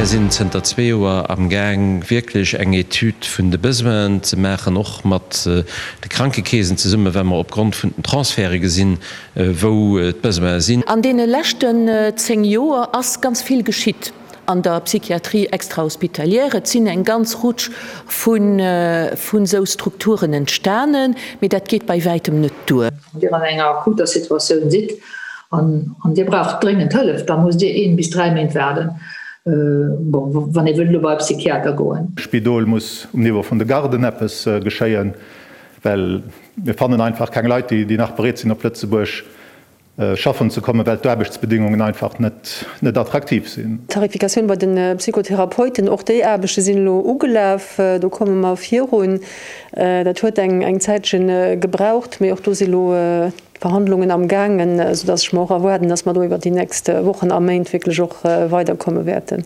Mär sinn zënter zwee Joer am Gaang wierklech eng Etüd vun de Besoinen ze maachen, och mat de Krankekeesen zesummen, well mer opgrond vun den Transferte gesinn, wou d'Besoine sinn. An deene leschten 10 Joer ass ganz vill geschitt an der Psychiatrie extrahospitalière. Et sinn eng ganz Rutsch vun esou Strukturen entstanen, mee dat geet bei wäitem net duer. Wann Dir an enger akuter Situatioun sidd an Dir braucht dréngend Hëllef, da musst Dir een bis 3 Méint waarden, bon, wann ee wëllt elo bei e Psychiater goen. Spidol muss um Niveau vun de Garden eppes geschéien, well mir fannen einfach keng Leit, déi nach bereet sinn op Lëtzebuerg schaffen ze kommen, well d'Aarbechtsbedingungen einfach net attraktiv sinn. D'Tarifikatioun bei de Psychotherapeuten, och déi Aarbechte sinn elo ugelaf. Do komme mer virun. Dat huet eng Zäitche gebraucht, mee och do si elo d'Verhandlungen am gaangen, soudass ech mer och erwaarden, dass mer do iwwert déi nächst Wochen a Méint wierklech och weiderkomme wäerten.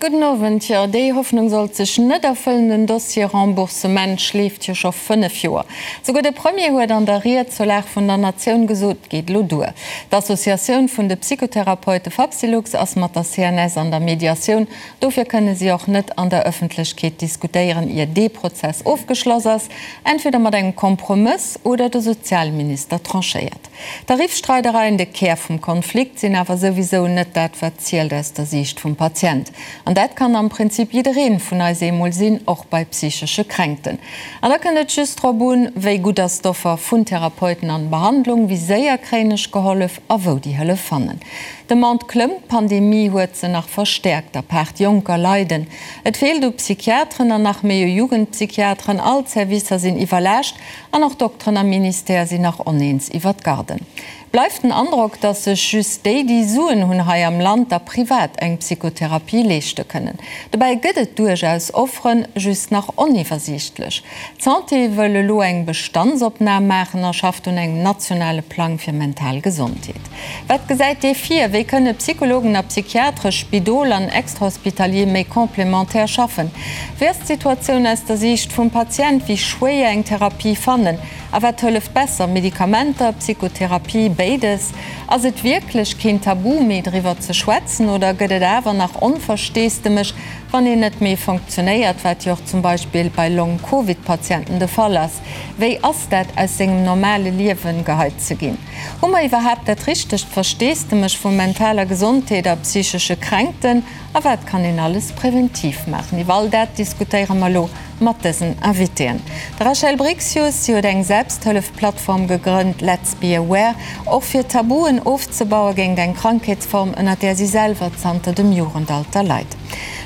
Gudden Owend. Jo, déi Hoffnung sollt sech net erfëllen. Den Dossier Remboursement schleeft jo scho 5 Joer. Souguer de Premier huet an der Ried zur Lag vun der Natioun gesot, et geet elo duer. D'Associatioun vun de Psychotherapeute Fapsylux ass mat der CNS an der Mediatioun. Dofir kënne si och net an der Ëffentlechkeet diskutéieren, ier dee Prozess ofgeschloss ass, entweder mat engem Kompromëss oder de Sozialminister tranchéiert. D'Tariffstreidereien, de Kär vum Konflikt, sinn awer souwisou net dat wat zielt aus der Siicht vum Patient. An dat kann am Prinzip jiddereen vun eis eemol sinn, och bei psychesche Kränkten. An da kënnt et just drop un, wéi gutt ass d'Offer vun Therapeuten an Behandlung, wéi séier kréien ech gehollef a wou déi Hëllef fannen. D'Demande klëmmt, d'Pandemie huet se nach verstäerkt. Apaart Jonker leiden. Et feelt u Psychiateren an nach méi u Jugendpsychiateren. All d'Servicer sinn iwwerlaascht. An och Dokteren am Ministère sinn nach oneens iwwer d'Garden. Bleift den Androck, datt sech just déi, déi Suen hunn hei am Land, da privat eng Psychotherapie leeschte kënnen. Dobäi gëtt et duerchaus Offeren, just nach oniwwersiichtlech. D'Santé wëll elo eng Bestandsopnam maachen a schafft un engem nationale Plang fir mental Gesondheet. Wat gesäit dee vir? Wéi kënne Psychologen a Psychiatre, Spidol an Extrahospitalier méi complémentaire schaffen? Wéi ass d'Situatioun aus der Siicht vum Patient? Wéi schwéier eng Therapie fannen? A wat hëlleft besser, Medikamenter, Psychotherapie, béides? Ass et wierklech keen Tabu méi driwwer ze schwätzen oder gëtt et awer nach Onversteesdemech, wann een net méi fonctionnéiert, wat jo och zum Beispill bei Long-Covid-Patienten de Fall ass? Wéi ass dat aus sengem normale Liewen geheit ze ginn? Hu mer iwwerhaapt dat richtegt Versteesdemech vu mentaler Gesondheet a psychesche Kränkten? A wat kann een alles präventiv maachen? Iwwer all dat diskutéiere mer elo mat dësen Invitéen. De Rachel Brixius, si huet eng Selbsthëllef-Plattform gegrënnt, Let's Be Aware, och fir Tabuen ofzebaue géint eng Krankheetsform, ënner där si selwer zanter dem Jugendalter leit.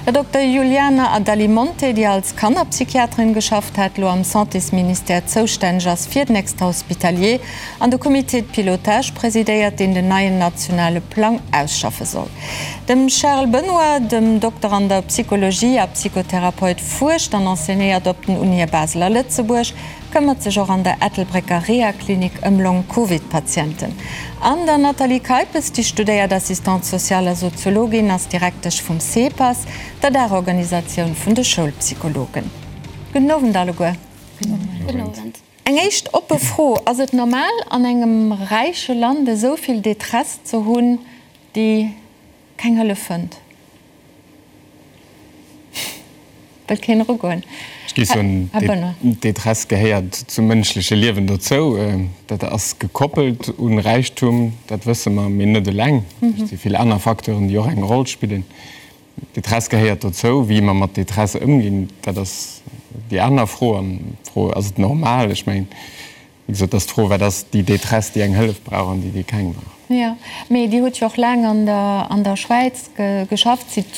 Der Dokter Juliana Adalimonte, déi als Kannerpsychiaterin geschafft hat, elo am Santésministère zoustänneg ass fir den Extrahospitalier, an de Comité de pilotage presidéiert, deen den neien nationale Plang ausschaffe soll. Dem Charles Benoy, dem Dokter an der Psychologie a Psychotherapeut, fuerscht an enseignéiert op den Unië Basel a Lëtzebuerg, këmmert sech och an der Ettelbrécker Rehaklinik ëm Long-Covid-Patienten. An der Nathalie Keipes, déi studéiert Assistante sociale a Soziologin, ass Direktesch vum CEPAS, der Daachorganisatioun vun de Schoulpsychologen. Gudden Owend alleguer. Gudden Owend. Eng éischt oppe Fro, Ass et normal an engem räiche Land esou vill Détresse ze hunn, déi keng Hëllef fënnt? Wëllt keen erugoen? Ech géif soen, Här Benoy. D'Détresse gehéiert zum mënschleche Liewen dozou. Dat ass gekoppelt un Räichtum, dat wësse mer, mee net eleng. Et si vill aner Facteuren, déi och eng Roll spillen. Détresse gehéiert dozou. Wéi mer mat Détresse ëmginn, dat ass déi aner Fro. An d'Fro, Ass et normal? Ech mengen, wéi gesot, dat ass d'Fro, Wat ass déi Détresse, déi eng Hëllef brauch an déi, déi keng brauch? Jo, mee Dir hutt jo och laang an der, an der Schwäiz geschafft, sidd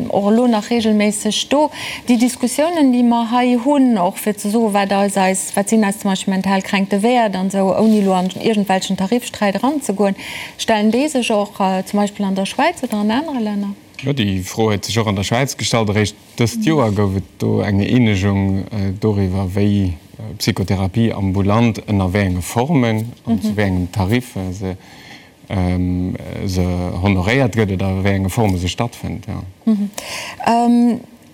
och elo nach regelméisseg do. Déi Diskussiounen, déi mer hei hunn, och fir ze soen, wat eis eis, wat sinn eis zum Beispill mental Kränkte wäert an esou, ouni elo an iergendwelchen Tariffsträit eranzegoen, Stellen déi sech och zum Beispill an der Schwäiz oder an anere Länner? Jo, déi Fro huet sech och an der Schwäiz gestallt. Eréischt dëst Joer gouf et do eng Eenegung doriwwer, wéi Psychotherapie ambulant ënner wéi enge Formen an zu wéi engem Tarif se se honoréiert gëtt oder a wéi enge Forme se stattfënnt.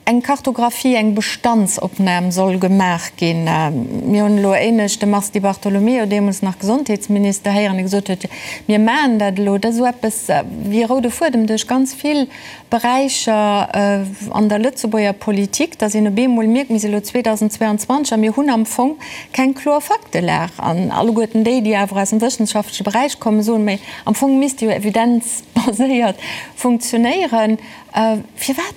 Eng Kartographie, eng Bestandsopnam soll gemaach ginn. Mir hunn elo éinescht de Mars Di Bartolomeo, deemools nach Gesondheetsminister, héieren, dee gesot huet, Mir maachen dat elo. Dat ass esou eppes wéi e roude Fuedem duerch ganz vill Beräicher an der Lëtzebuerger Politik, datt een op eemol mierkt, mir si elo 2022 a mir hunn am Fong keng kloer Faktelag. An alleguerten déi, déi awer aus dem wëssenschaftleche Beräich kommen, soen, Mä am Fong misst jo evidenzbaséiert funktionéieren. Firwat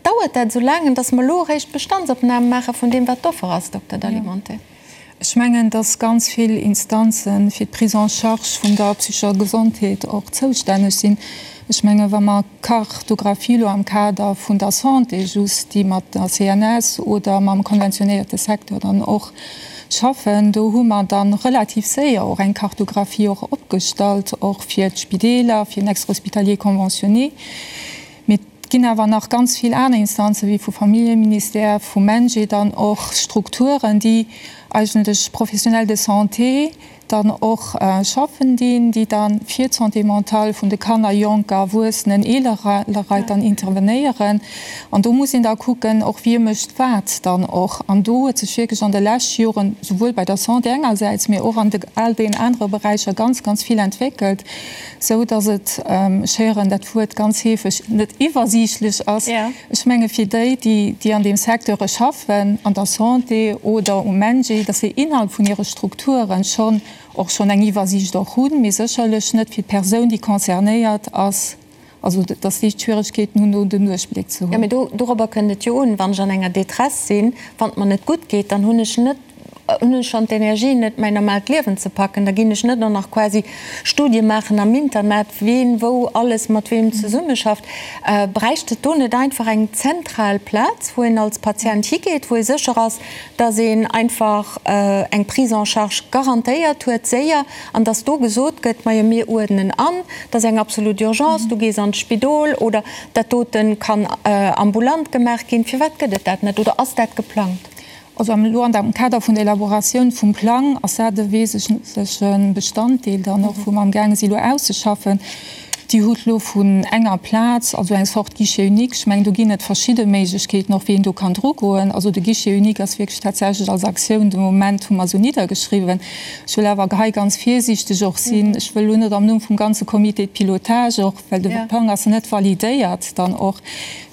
dauert dat esou laang, an datt mer elo eréischt Bestandsopname maache vun deem, wat d'Offer ass, Dokter Dalimonte? Ech mengen, dass ganz vill Instanze fir d'Prise en charge vun der psychescher Gesondheet och zoustänneg sinn. Ech menge wa mer d'Kartographie elo am Kader vun der Santé just, déi mat der CNS oder mam konventionéierte Secteur dann och schaffen, do hu mer da relativ séier och eng Kartographie och opgestallt, och fir d'Spideeler, fir den Extra-hospitalier conventionné. Mee et ginn awer nach ganz vill aner Instanzen, wéi vu Familljeministère, vum MENJE dann och Strukturen, déi eigentlech Professionnels de santé dann och schaffen dinn, déi da fir d'Santé mentale vun de Kanner, Jonker, Erwuessenen, eelere Leit dann intervenéieren. An do muss een da kucken och, wie mécht wat dann och. An do huet sech wierklech an de leschte Joren, souwuel bei der Santé engersäits, mee och an all deenen anere Beräicher ganz, ganz vill entwéckelt. Sou datt et, ech héieren dat Wuert ganz heefeg, net iwwersiichtlech ass. Ech menge fir déi, déi an deem Secteure schaffen, an der Santé oder um MENJE, datt se innerhalb vun hire Strukturen schonn och schonn eng Iwwersiicht och hunn, mee sécherlech net fir d'Persoun, déi concernéiert ass, also datt déi Schwieregkeeten hunn, do den Duerchbléck ze hunn. Jo, mee dorobber kënnt et jo un. Wann ech an enger Détresse sinn, wann et mer net gutt geet, dann hunn ech net, hunn ech schonn d'Energie net, mäin normaalt Liewen ze packen, da ginn ech net och nach quasi Studie maachen am Internet, ween wou alles mat weem zesummeschafft. Bräicht et do net einfach eng zentral Plaz, wou een als Patient higeet, wou ee sécher ass, dass een einfach eng Prise en charge garantéiert huet, séier, an dass do gesot gëtt, majo mir uerdnen an, dat ass eng absolut Urgence, du gees an d'Spidol oder dat dote kann ambulant gemaach ginn. Firwat gëtt et dat net oder ass dat geplangt? Also elo an am Kader vun der Elaboratioun vum Plang ass dat e wesentleche Bestanddeel dann och, wou mer amgaange si elo auszeschaffen. Dir hutt elo vun enger Plaz, also eng Sorte Guichet unique, ech mengen do ginn et verschidde Méiglechkeeten och, wéi een do kann drugoen. Also de Guichet unique ass wierklech tatsächlech als Aktioun de Moment, hu mer esou niddergeschriwwen. Ech wëll awer hei ganz virsiichteg och sinn. Ech wëll elo net am Numm vum ganze Comité de pilotage och, well de Plang ass net validéiert dann och,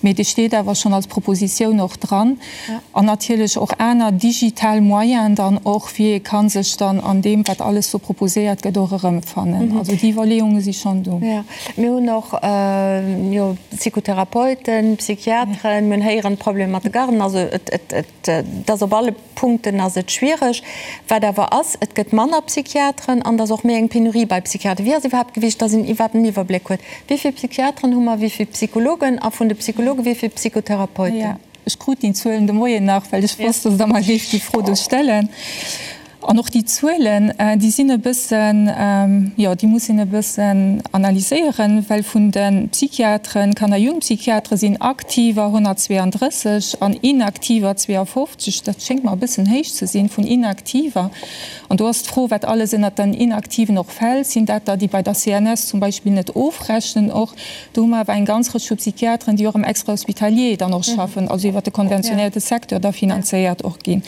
mee dee steet awer schonn als Propositioun och dran. An natierlech och aner digital Moyenen dann och, wéi ee ka sech dann an deem, wat alles do proposéiert gëtt, och erëmfannen. Also déi Iwwerleeunge si schonn do. Jo, mir hunn och jo Psychotherapeuten, Psychiateren, mir hunn héieren, Problemer mat de Garden. Also et, et, et ass op alle Punkten ass et schwiereg. Wat awer ass, et gëtt manner Psychiateren an et ass och méi eng Penurie bei Psychiateren. Wéi ass iwwerhaapt gewiescht, dass een iwwerhaapt en Iwwerbléck huet, wéi vill Psychiateren hu mer, wéi vill Psychologen a vun de Psychologe wéi vill Psychotherapeuten? Ech krut déi Zuelen de Moien nach, well ech wosst, dass Der mer géift déi Fro do stellen. An och déi Zuelen, déi sinn e bëssen, jo, déi muss een e bëssen analyséieren, well vun de Psychiateren, Kanner Jugendpsychiatere sinn aktiver 132 an inaktiver 52. Dat schéngt mer e bëssen héich ze sinn, vun inaktiver. An do ass d'Fro, wat alles ënnert den Inaktiven och fält. Sinn dat der, déi bei der CNS zum Beispill net ofrechnen och? Do hu mer awer eng ganz Rëtsch vu Psychiateren, déi och am Extrahospitalier dann och schaffen, also iwwert de konventionéierte Secteur da finanzéiert och ginn.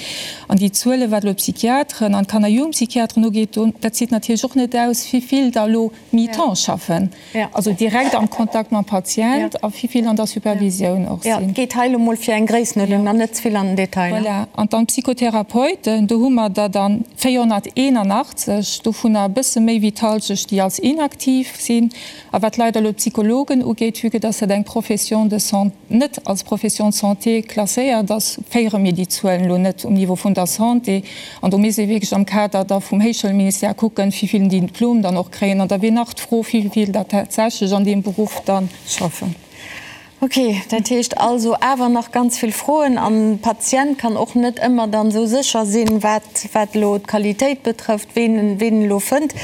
An déi Zuelen, wat elo d'Psychiateren an d'Kanner Jugendpsychiateren ugeet, do, dat zitt natierlech och net aus, wivill der elo mi-temps schaffen, also direkt am Kontakt mam Patient, a wivill an der Supervisioun och sinn. Jo, et geet hei elo mol fir eng Gréissenuerdnung an net ze vill an den Detail. Voilà. An dann d'Psychotherapeuten, do hu mer der dann 481, dovunner e bësse méi wéi d'Halschecht, déi als inaktiv sinn. A wat leider elo d'Psychologen ugeet, vue que dass dat eng Profession de santé, net als Profession de santé klasséiert ass, féiere mir déi Zuelen elo net um Niveau vun der Santé. An do misst ee wierklech am Kader da vum Héichschoulministère kucken, wéi vill déi Diplom dann och kréien. An da wier nach d'Fro, wéi vill der tatsächlech an deem Beruff da schaffen. Ok, dat heescht also awer nach ganz vill Froen an de Patient kann och net ëmmer dann esou sécher sinn, wat, wat elo d'Qualitéit betrëfft, ween en, ween en elo fënnt.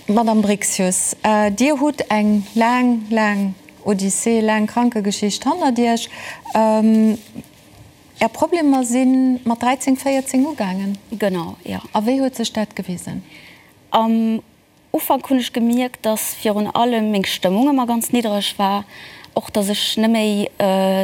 Madame Brixius, Dir hutt eng laang, laang Odyssee, laang Krankegeschicht hannert Iech. Är Problemer si mat 13, 14 ugaangen? Genau, jo. A wéi huet sech dat gewisen? Am. Ufank hunn ech gemierkt, dass virun allem meng Stëmmung ëmmer ganz niddereg war, och dass ech net méi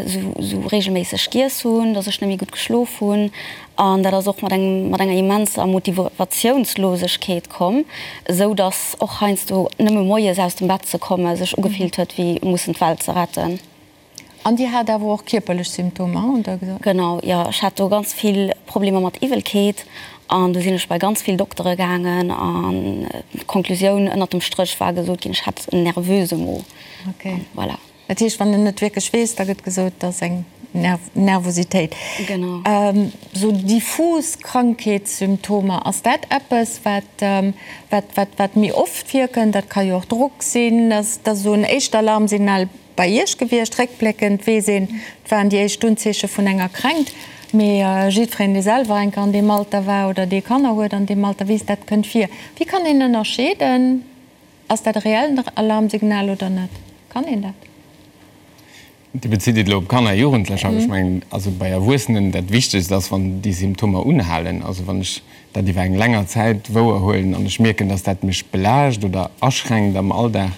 sou regelméisseg giess hunn, dass ech net méi gutt geschlof hunn an dat ass och mat engem mat enger immenser Motivatiounslosegkeet komm, esou dass och heiansdo nëmme moies aus dem Bett ze komme sech ugefillt huet wéi mussen d'Welt ze retten. An Dir hat awer och kierperlech Symptomer, hutt Der gesot? Genau, jo. Ech hat do ganz vill Problemer mat Iwwelkeet an do sinn ech bei ganz vill Doktere gaangen an d'Konklusioun ënnert dem Stréch war gesot ginn, ech hätt en nervöse Mo. Okay. Voilà. Dat heescht, wann een net wierklech weess, da gëtt gesot, et ass eng Nervositéit. Genau. Sou diffus Krankheetssymptomer, ass dat eppes, wat, wat, wat, wat méi oft virkënnt? Dat ka jo och Drock sinn, ass dat esou en éischt Alarmsignal? Bei Iech gewiescht. Réckbléckend weess een, et waren déi éischt Unzeeche vun enger Kränkt. Mee jiddwereen, dee selwer eng Kéier an deem Alter war oder dee Kanner huet an deem Alter, weess, dat kënnt vir. Wéi kann een ënnerscheeden, ass dat e reellen Alarmsignal oder net? Kann een dat? Dir bezitt et elo op Kanner a Jugendlecher. Ech mengen, also bei Erwuessenen, dat Wichtegst ass, wann déi Symptomer unhalen. Also wann ech dat iwwer eng länger Zäit wouerhuelen an ech mierken, dass dat mech belaascht oder aschränkt am Alldag,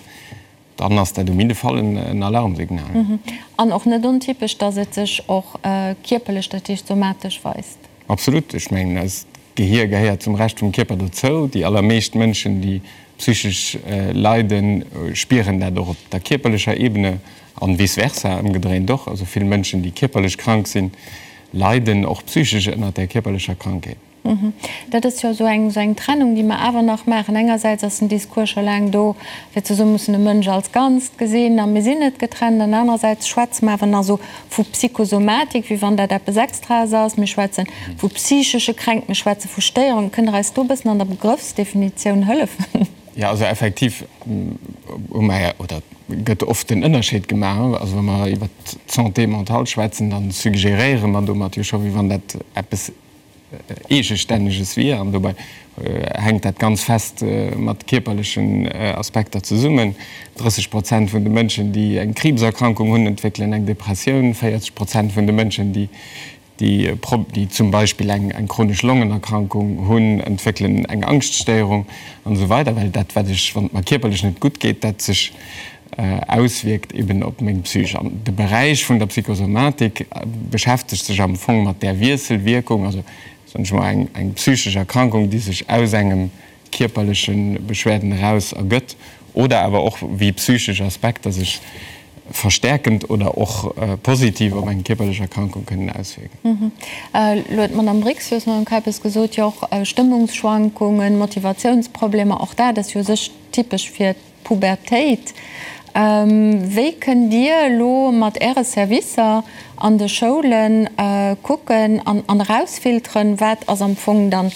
Dann ass dat um jidde Fall en Alarmsignal. An och net ontypesch, dass et sech och kierperlech, dat heescht somatesch weist. Absolut. Ech mengen, eist Gehier gehéiert zum Rescht vum Kierper dozou. Déi allermeescht Mënschen, déi psychesch leiden, spieren dat och op der kierperlecher Ebene an vice versa, ëmgedréint och. Also vill Mënschen, déi kierperlech krank sinn, leiden och psychesch ënnert där kierperlecher Krankheet. Dat ass jo esou eng, esou eng Trennung, déi mer awer nach maachen. Engersäits ass den Discours scho laang do, fir ze soen, mir mussen de Mënsch als Ganzt gesinn a mir sinn net getrennt. An anerersäits schwätze mer awer nach esou vu Psychosomatik, wéi wann dat eppes Extraes ass. Mir schwätze vu psychesche Kränkt, mir schwätze vu Stéierungen. Kënnt Der eis do e bëssen an der Begrëffsdefinitioun hëllefen? Jo, also effektiv hu mer, oder gëtt oft den Ënnerscheed gemaach. Also wa mer iwwert d'Santé mentale schwätzen, da suggeréiere mer domat jo scho, wéi wann dat eppes Eegestänneges wier, an dobäi hänkt dat ganz fest mat kierperlechen Aspekter zesummen. 30 Prozent vun de Mënschen, déi eng Kriibserkrankung hunn, entwéckelen eng Depressioun. 40 Prozent vun de Mënschen, déi zum Beispill eng chronesch Longenerkrankung hunn, entwéckelen eng Angschtstéierung an esou weider. Well dat, wat ech, wann et mer kierperlech net gutt geet, dat sech auswierkt eben op meng Psych. An de Beräich vun der Psychosomatik beschäftegt sech am Fong mat där Wiesselwierkung, also soen ech mol eng eng psychesch Erkrankung, déi sech aus engem kierperleche Beschwerden eraus ergëtt, oder awer och wéi psychesch Aspekter sech verstärkend oder och positiv op eng kierperlech Erkrankung kënnen auswierken. Elo huet d'Madame Brixius, Madame Keipes, gesot, jo och Stëmmungsschwankungen, Motivatiounsproblemer, och dat ass jo u sech typesch fir Pubertéit. Wéi kënnt Dir elo mat Äre Servicer an de Schoule kucken an erausfilteren, wat ass am Fong dann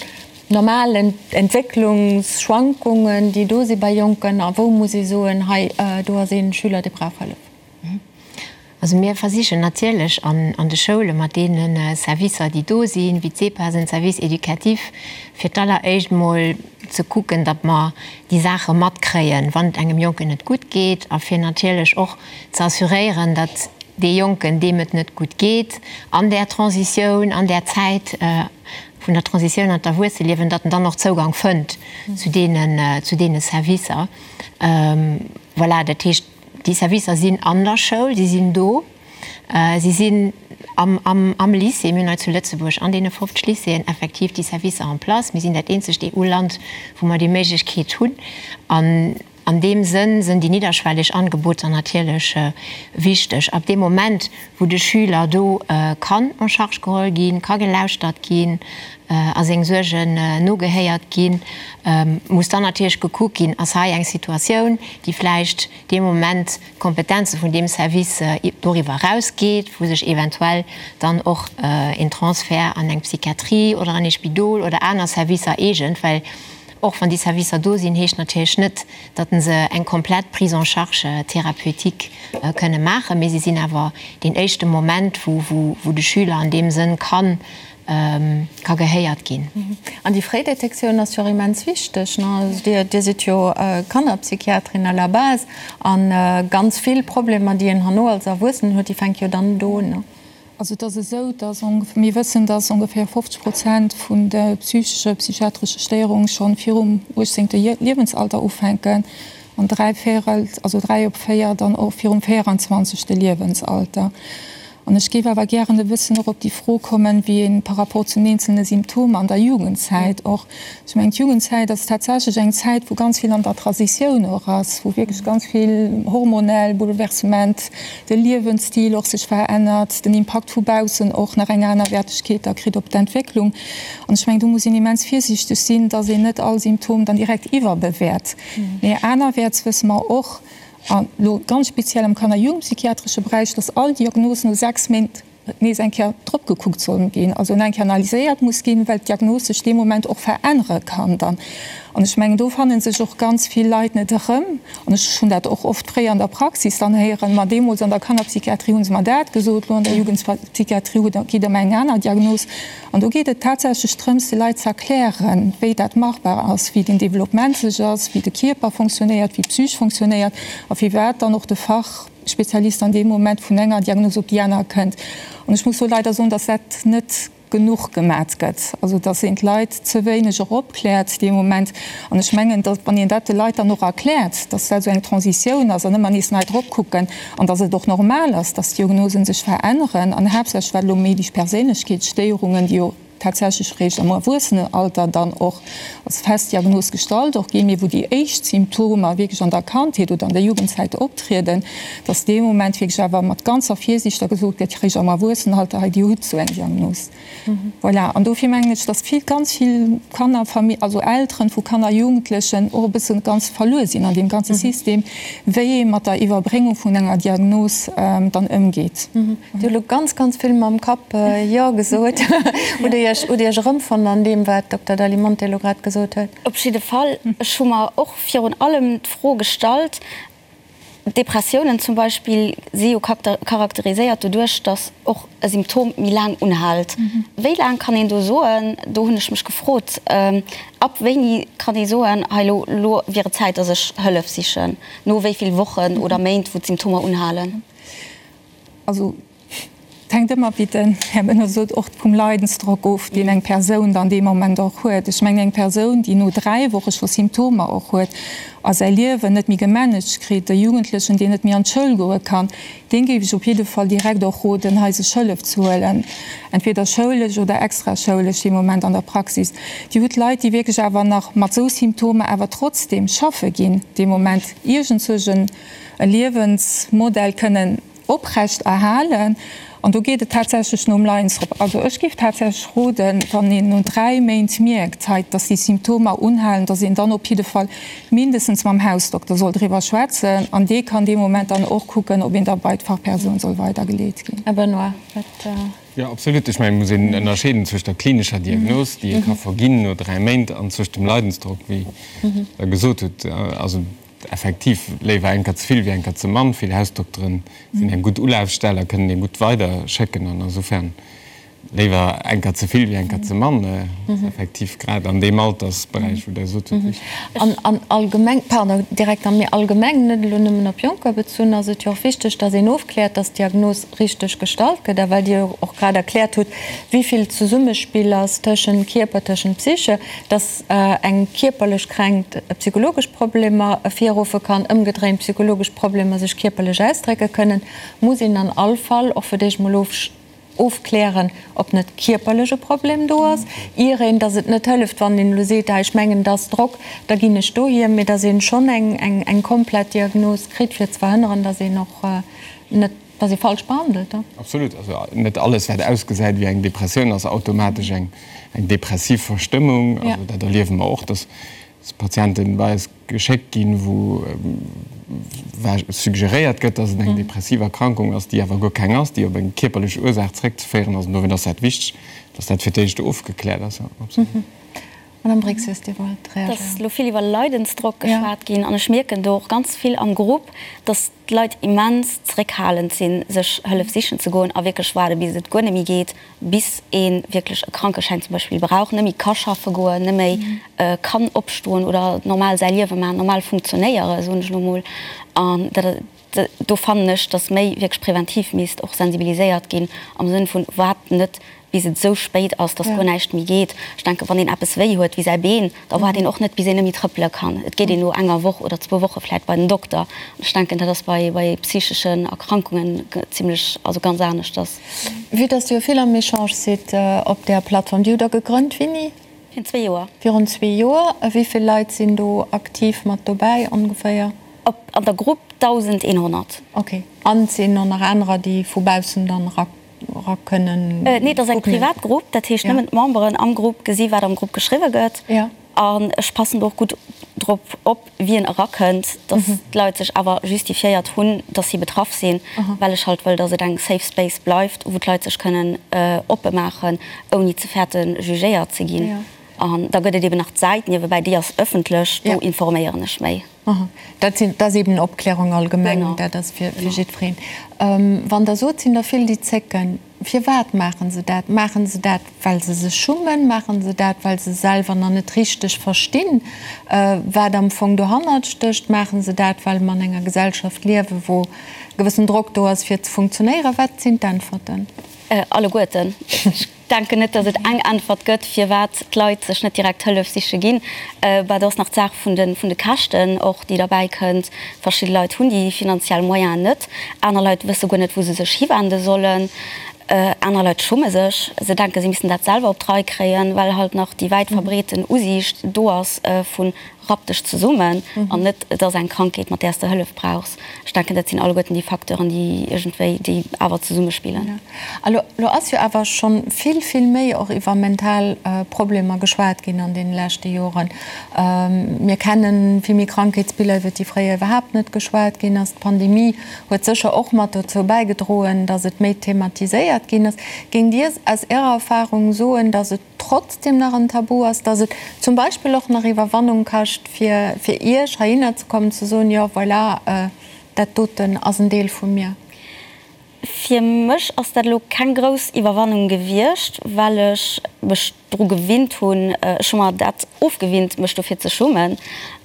normal Entwécklungsschwankungen, déi do si bei Jonken, a wou muss ee soen, hei do ass ee Schüler, dee brauch Hëllef? Also mir versichen natierlech an de Schoule mat deene Servicer, déi do sinn, wéi d'SEPAS, en Service éducatif, fir d'alleréischt mol ze kucken, datt mer déi Saache matkréien, wann et engem Jonken net gutt geet, a fir natierlech och ze assuréieren, datt dee Jonken, deem et net gutt geet an där Transitioun, an där Zäit vun der Transitioun an d'Erwuesseliewen, datt en dann och Zougang fënnt zu deenen, zu deene Servicer. Voilà, dat heescht, Déi Servicer sinn an der Schoul, si sinn do, si sinn am Lycée. Mir hunn hei zu Lëtzebuerg an deene 50 Lycéeën effektiv déi Servicer en place. Mir sinn dat eenzegt EU-Land, wou mer déi Méiglechkeet hunn. An an deem Sënn sinn déi nidderschwelleg Angeboter natierlech wichteg. Ab deem Moment, wou de Schüler do kann en charge geholl ginn, ka gelauschtert ginn a seng Suergen nogehéiert ginn, muss dann natierlech gekuckt ginn, ass hei eng Situatioun, déi vläicht dee Moment d'Kompetenze vun deem Service doriwwer erausgeet, wou sech eventuell dann och een Transfert an eng Psychiatrie oder an ee Spidol oder aner Servicer eegent, well och wann déi Servicer do sinn, heescht natierlech net, datt se eng komplett Prise en charge thérapeutique kënne maachen, mee si sinn awer deen éischte Moment, wou de Schüler an deem Sënn kann ka gehéiert ginn. An déi fréi Detektioun ass jo och immens wichteg. Dir sidd jo Kannerpsychiaterin à la base a ganz vill Problemer, déi een herno als Erwuessenen huet, déi fänke jo dann do un. Also et ass esou, dass mir wëssen, dass ongeféier 50 Prozent vun de psychesche, psychiatresche Stéierunge schonn virum 18. Liewensalter ufänken an dräi Véierel, also dräi op véier dann och virum 24. Liewensalter. An ech géif awer gären e bëssen och op déi Fro kommen, wéi ee par rapport zu den eenzelne Symptomer an der Jugendzäit och, ech mengen, d'Jugendzäit ass tatsächlech eng Zäit, wou ganz vill an der Transitioun och ass, wou wierklech ganz vill hormonell Bouleversement, de Liewensstil och sech verännert, den Impakt vu baussen och nach eng aner Wertegkeet da kritt op d'Entwécklung. An ech mengen, do muss een immens virsiichteg sinn, dass een net all Symptom dann direkt iwwerbewäert. Mee anerwäerts wësse mer och, An elo ganz speziell am kanner jugendpsychiatresche Beräich, dass all Diagnos no 6 Méint nees eng Kéier drop gekuckt soll ginn, also eng Kéier analyséiert muss ginn, well d'Diagnos sech dee Moment och verännere kann dann. An ech mengen, do fanne sech och ganz vill Leit net erëm. An ech hunn dat och oft fréier an der Praxis dann héieren, ma deemools an der Kannerpsychiatrie hu se mer dat gesot, elo an der Jugendpsychiatrie gitt Der mer eng aner Diagnos. An do geet et tatsächlech drëms, de Leit ze erklären, wéi dat machbar ass, wéi den Développement sech ass, wéi de Kierper fonctionnéiert, wéi d'Psych fonctionnéiert a firwat dann och de Fachspezialist an deem Moment vun enger Diagnos op déi aner kënnt. An ech muss do leider soen, dass dat net genuch gemat gëtt, also dass een d'Leit ze wéineg och opkläert dee Moment. An ech mengen, dass, wann een dat de Leit dann och erkläert, dass dat esou eng Transitioun ass an ëmmer nees nei drop kucken an dass et och normal ass, dass d'Diagnosen sech veränneren an haaptsächlech wat elo méi déi Perséinlechkeetsstéierungen, déi jo tatsächlech réischt am Erwuessenenalter dann och als fest Diagnos gestallt och ginn, mee wou déi éischt Symptomer wierklech an der Kandheet oder an der Jugendzäit optrieden, dass dee Moment wierklech awer mat ganzer Virsiicht da gesot gëtt, réischt am Erwuessenenalter, hei Dir hutt esou eng Diagnos. Voilà, an dofir mengen ech, dass vill, ganz vill Kanner, also Elteren vu Kanner, Jugendlechen och e bësse ganz verluer sinn an deem ganze System, wéi ee mat der Iwwerbréngung vun enger Diagnos dann ëmgeet. Dir hutt elo ganz, ganz vill mam Kapp Jo gesot. Hutt Dir Iech, hutt Dir Iech erëmfonnt an deem, wat d'Dokter Dalimonte elo grad gesot huet? Op jidde Fall. Ech hu mer och virun allem d'Fro gestallt, Depressiounen zum Beispill si jo charakteriséiert doduerch, datt och e Symptom méi laang unhält. Wéi laang kann een do soen, do hunn ech mech gefrot, ab wéini kann ee soen, hei lo, lo wier et Zäit, datt ech Hëllef sichen, no wéi vill Wochen oder Méint, wou d'Symptomer unhalen? Also Et hänkt ëmmer, wéi den Här Benoy sot, och vum Leidensdrock of, deen eng Persoun dann dee Moment och huet. Ech mengen, eng Persoun, déi no 3 Woche scho Symptomer och huet a säi Liewen net méi gemanagt kritt, e Jugendlechen, deen net méi an d'Schoul goe kann, deem géif ech op jidde Fall direkt och roden, hei sech Hëllef ze huelen, entweder schoulesch oder extraschoulesch dee Moment an der Praxis. Dir hutt Leit, déi wierklech awer nach mat esou Symptomer awer trotzdem schaffe ginn dee Moment, iergendzwousch e Liewensmodell kënnen oprecht erhalen. An do geet et tatsächlech nom Leinsdrock. Also ech géif tatsächlech roden, wann een no 3 Méint mierkt, hei, dass déi Symptomer unhalen, dass een dann op jidde Fall mindestens mam Hausdokter soll driwwer schwätzen. An dee kann dee Moment dann och kucken, ob een da bei d'Fachpersoun soll weidergeleet ginn. Här Benoy, wat. Jo, absolut. Ech mengen, et muss een ënnerscheeden zwëscht der klinescher Diagnos, déi ee ka verginn no 3 Méint, an zwëscht dem Leidensdrock, wéi Der gesot hutt. Also Effektiv, léiwer eng Kéier ze vill wéi eng Kéier ze mann. Vill Hausdokteren sinn eng gutt Ulafstell a kënnen ee gutt weider schécken an insofern léiwer eng Kéier ze vill wéi eng Kéier ze mann. Dat ass effektiv grad an deem Altersberäich, wou Der sot hutt, wichteg. An an allgemeng, pardon, Direkter, mee allgemeng, net elo nëmmen op Jonker bezunn, ass et jo och wichteg, dass een ofkläert, dass d'Diagnos richteg gestallt gëtt. A well Dir jo och grad erkläert hutt, wéi vill Zesummespill ass tëschent Kierper, tëschent Psyche, dass, eng kierperlech Kränkt psychologesch Problemer ervirruffe kann, ëmgedréint psychologesch Problemer sech kierperlech ausdrécke kënnen, muss een an all Fall och fir d'éischt mol ofklären, ob net kierperlech e Problem do ass, ier een, dass et net hëlleft, wann een elo seet, ah ech mengen et ass Drock, da ginn ech dohier, mee dass een schonn eng komplett Diagnos kritt, fir ze verhënneren, dass een och net Dass ee falsch behandelt, da. Absolut. Also net alles, wat ausgesäit wéi eng Depressioun, ass automatesch eng depressiv Verstëmmung. Also dat erliewe mer och, dass Patienten bei eis geschéckt ginn, wou suggeréiert gëtt, dass et eng depressiv Erkrankung ass, déi awer guer keng ass, déi op eng kierperlech Ursaach zréckzeféieren ass. An dowéint ass dat wichteg, dass dat fir d'éischt ofgekläert ass. Absolut. Madame Brixius, Dir wollt reagéieren. Et ass elo vill iwwer Leidensdrock geschwat ginn an ech mierken do och ganz vill am Grupp, dass d'Leit immens zeréckhalend sinn, sech Hëllef sichen ze goen a wierklech waarde bis et guer net méi geet, bis ee wierklech e Krankeschäin zum Beispill brauch, net méi ka schaffe goen, net méi kann opstoen oder normal säi Liewe maachen, normal funktionéieren, soen ech elo mol. An dat. Do fannen ech, dass méi wierklech präventiv misst och sensibiliséiert ginn am Sënn vun, waart net bis et esou spéit ass, dass guer näischt méi geet. Ech denken, wann een eppes wéi huet wéi säi Been, da waart een och net bis een net méi trëppele kann. Et geet een no enger Woch oder zwou Woche vläit bei den Dokter. An ech denken, dat ass bei bei psycheschen Erkrankungen zimlech, also ganz aneschters. Vue dass Dir jo vill am Echange sidd op där Plattform, déi hutt Der gegrënnt wéini? Virun zwee Joer. Virun zwee Joer. A wéi vill Leit sinn do aktiv mat dobäi ongeféier? Op an der Grupp 1.100. Ok. An et sinn och nach anerer, déi vu baussen dann era era kënnen Nee, et ass eng privat Grupp, dat heescht nëmmen d'Memberen am Grupp gesi wat am Grupp geschriwwe gëtt. An ech passen do och gutt drop op, wien erakënnt, dass d'Leit sech awer justifiéiert hunn, dass si betraff sinn, well ech halt wëll, dass et eng safe space bleift, wou d'Leit sech kënnen oppe maachen, ouni ze fäerten, jugéiert ze ginn. An da gëtt et eben nach d'Säit niewebäi, déi ass ëffentlech, do informéieren ech méi. Dat sinn, dat ass eben Opklärung allgemeng, dat ass fir jiddwereen. Wann Der sot, sinn der vill, déi zécken, firwat maache se dat? Maache se dat, well se sech schummen? Maache se dat, well se selwer nach net richteg verstinn, wat am Fong dohannert stécht? Maache se dat, well mer an enger Gesellschaft liewen, wou e gewëssen Drock do ass, fir ze funktionéieren? Wat sinn d'Äntwerten? Alleguerten. Denken net, datt et eng Äntwert gëtt, firwat d'Leit sech net direkt Hëllef siche ginn. Bah, do ass nach d'Saach vun de vun de Käschten och, déi derbäi kënnt. Verschidde Leit hunn déi finanziell Moyenen net, aner Leit wësse guer net, wou se sech hiwende sollen, aner Leit schumme sech, se denken, se missten dat selwer op d'Rei kréien, well halt nach déi wäit verbreeten Usiicht do ass vun Rapp dech zesummen an net et ass eng Krankheet, mat där s de Hëllef brauchs. Ech denken, dat sinn alleguerten déi Facteuren, déi iergendwéi, déi awer zesummespillen. A lo, lo ass jo awer scho vill, vill méi och iwwer mental Problemer geschwat ginn an deene leschte Joren. Mir kenne vill méi Krankheetsbiller, iwwer déi fréier iwwerhaapt net geschwat ginn ass. D'Pandemie huet sécher och mat dozou bäigedroen, datt et méi thematiséiert ginn ass. Géingt Dir aus Ärer Erfahrung soen, datt et trotzdem nach en Tabu ass, dass et zum Beispill och nach Iwwerwannung kascht, fir fir Iech heihinner ze kommen, ze soen, jo voilà, dat doten ass en Deel vu mir? Fir mech ass dat elo keng grouss Iwwerwannung gewiescht, well ech mech dru gewinnt hunn. Ech hu mer dat ofgewinnt, mech dofir ze schummen,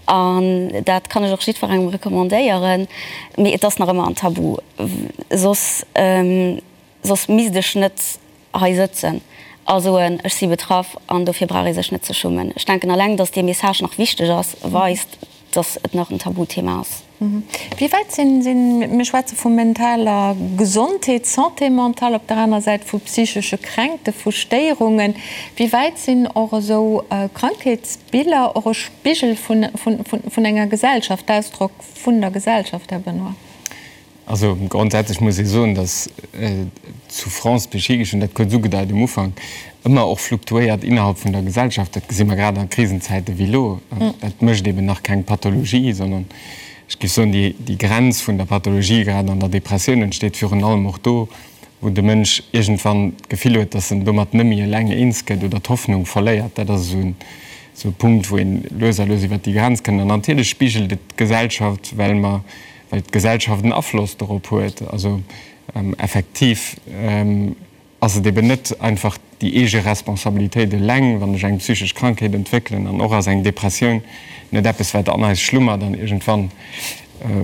an dat kann ech och jiddwerengem recommandéieren. Mee et ass nach ëmmer en Tabu, soss soss misst ech net hei sëtzen a soen, ech si betraff an dofir brauch ee sech net ze schummen. Ech denken, alleng datt dee Message nach wichteg ass, weist, datt et nach en Tabuthema ass. Wéi wäit sinn, sinn, mir schwätze vu mentaler Gesondheet, Santé mentale, op der aner Säit vu psychesche Kränkte, vu Stéierungen, wéi wäit sinn och esou Krankheetsbiller och e Spigel vun, vun, vun enger Gesellschaft, Ausdrock vun der Gesellschaft, Här Benoy? Also grondsätzlech muss ee soen, datt d'Souffrance psychique, ech hunn dat kuerz ugedeit um Ufank, ëmmer och fluktuéiert innerhalb vun der Gesellschaft. Dat gesi mer grad a Krisenzäite wéi elo. Dat mécht eben nach keng Pathologie, sondern ech géif soen, déi Grenz vun der Pathologie, grad an der Depressioun, entsteet virun allem och do, wou de Mënsch iergendwann d'Gefill huet, datt en domat net méi eleng eens gëtt oder d'Hoffnung verléiert. Dat ass esou e Punkt, wou een lues a lues iwwert déi Grenz kënnt. An natierlech spigelt et d'Gesellschaft, well mer well d'Gesellschaft en Afloss dorop huet. Also effektiv ass et eben net einfach déi eege Responsabilitéit eleng, wann ech eng psychesch Krankheet entwéckelen. An och ass eng Depressioun net eppes, wat an eis schlummert an iergendwann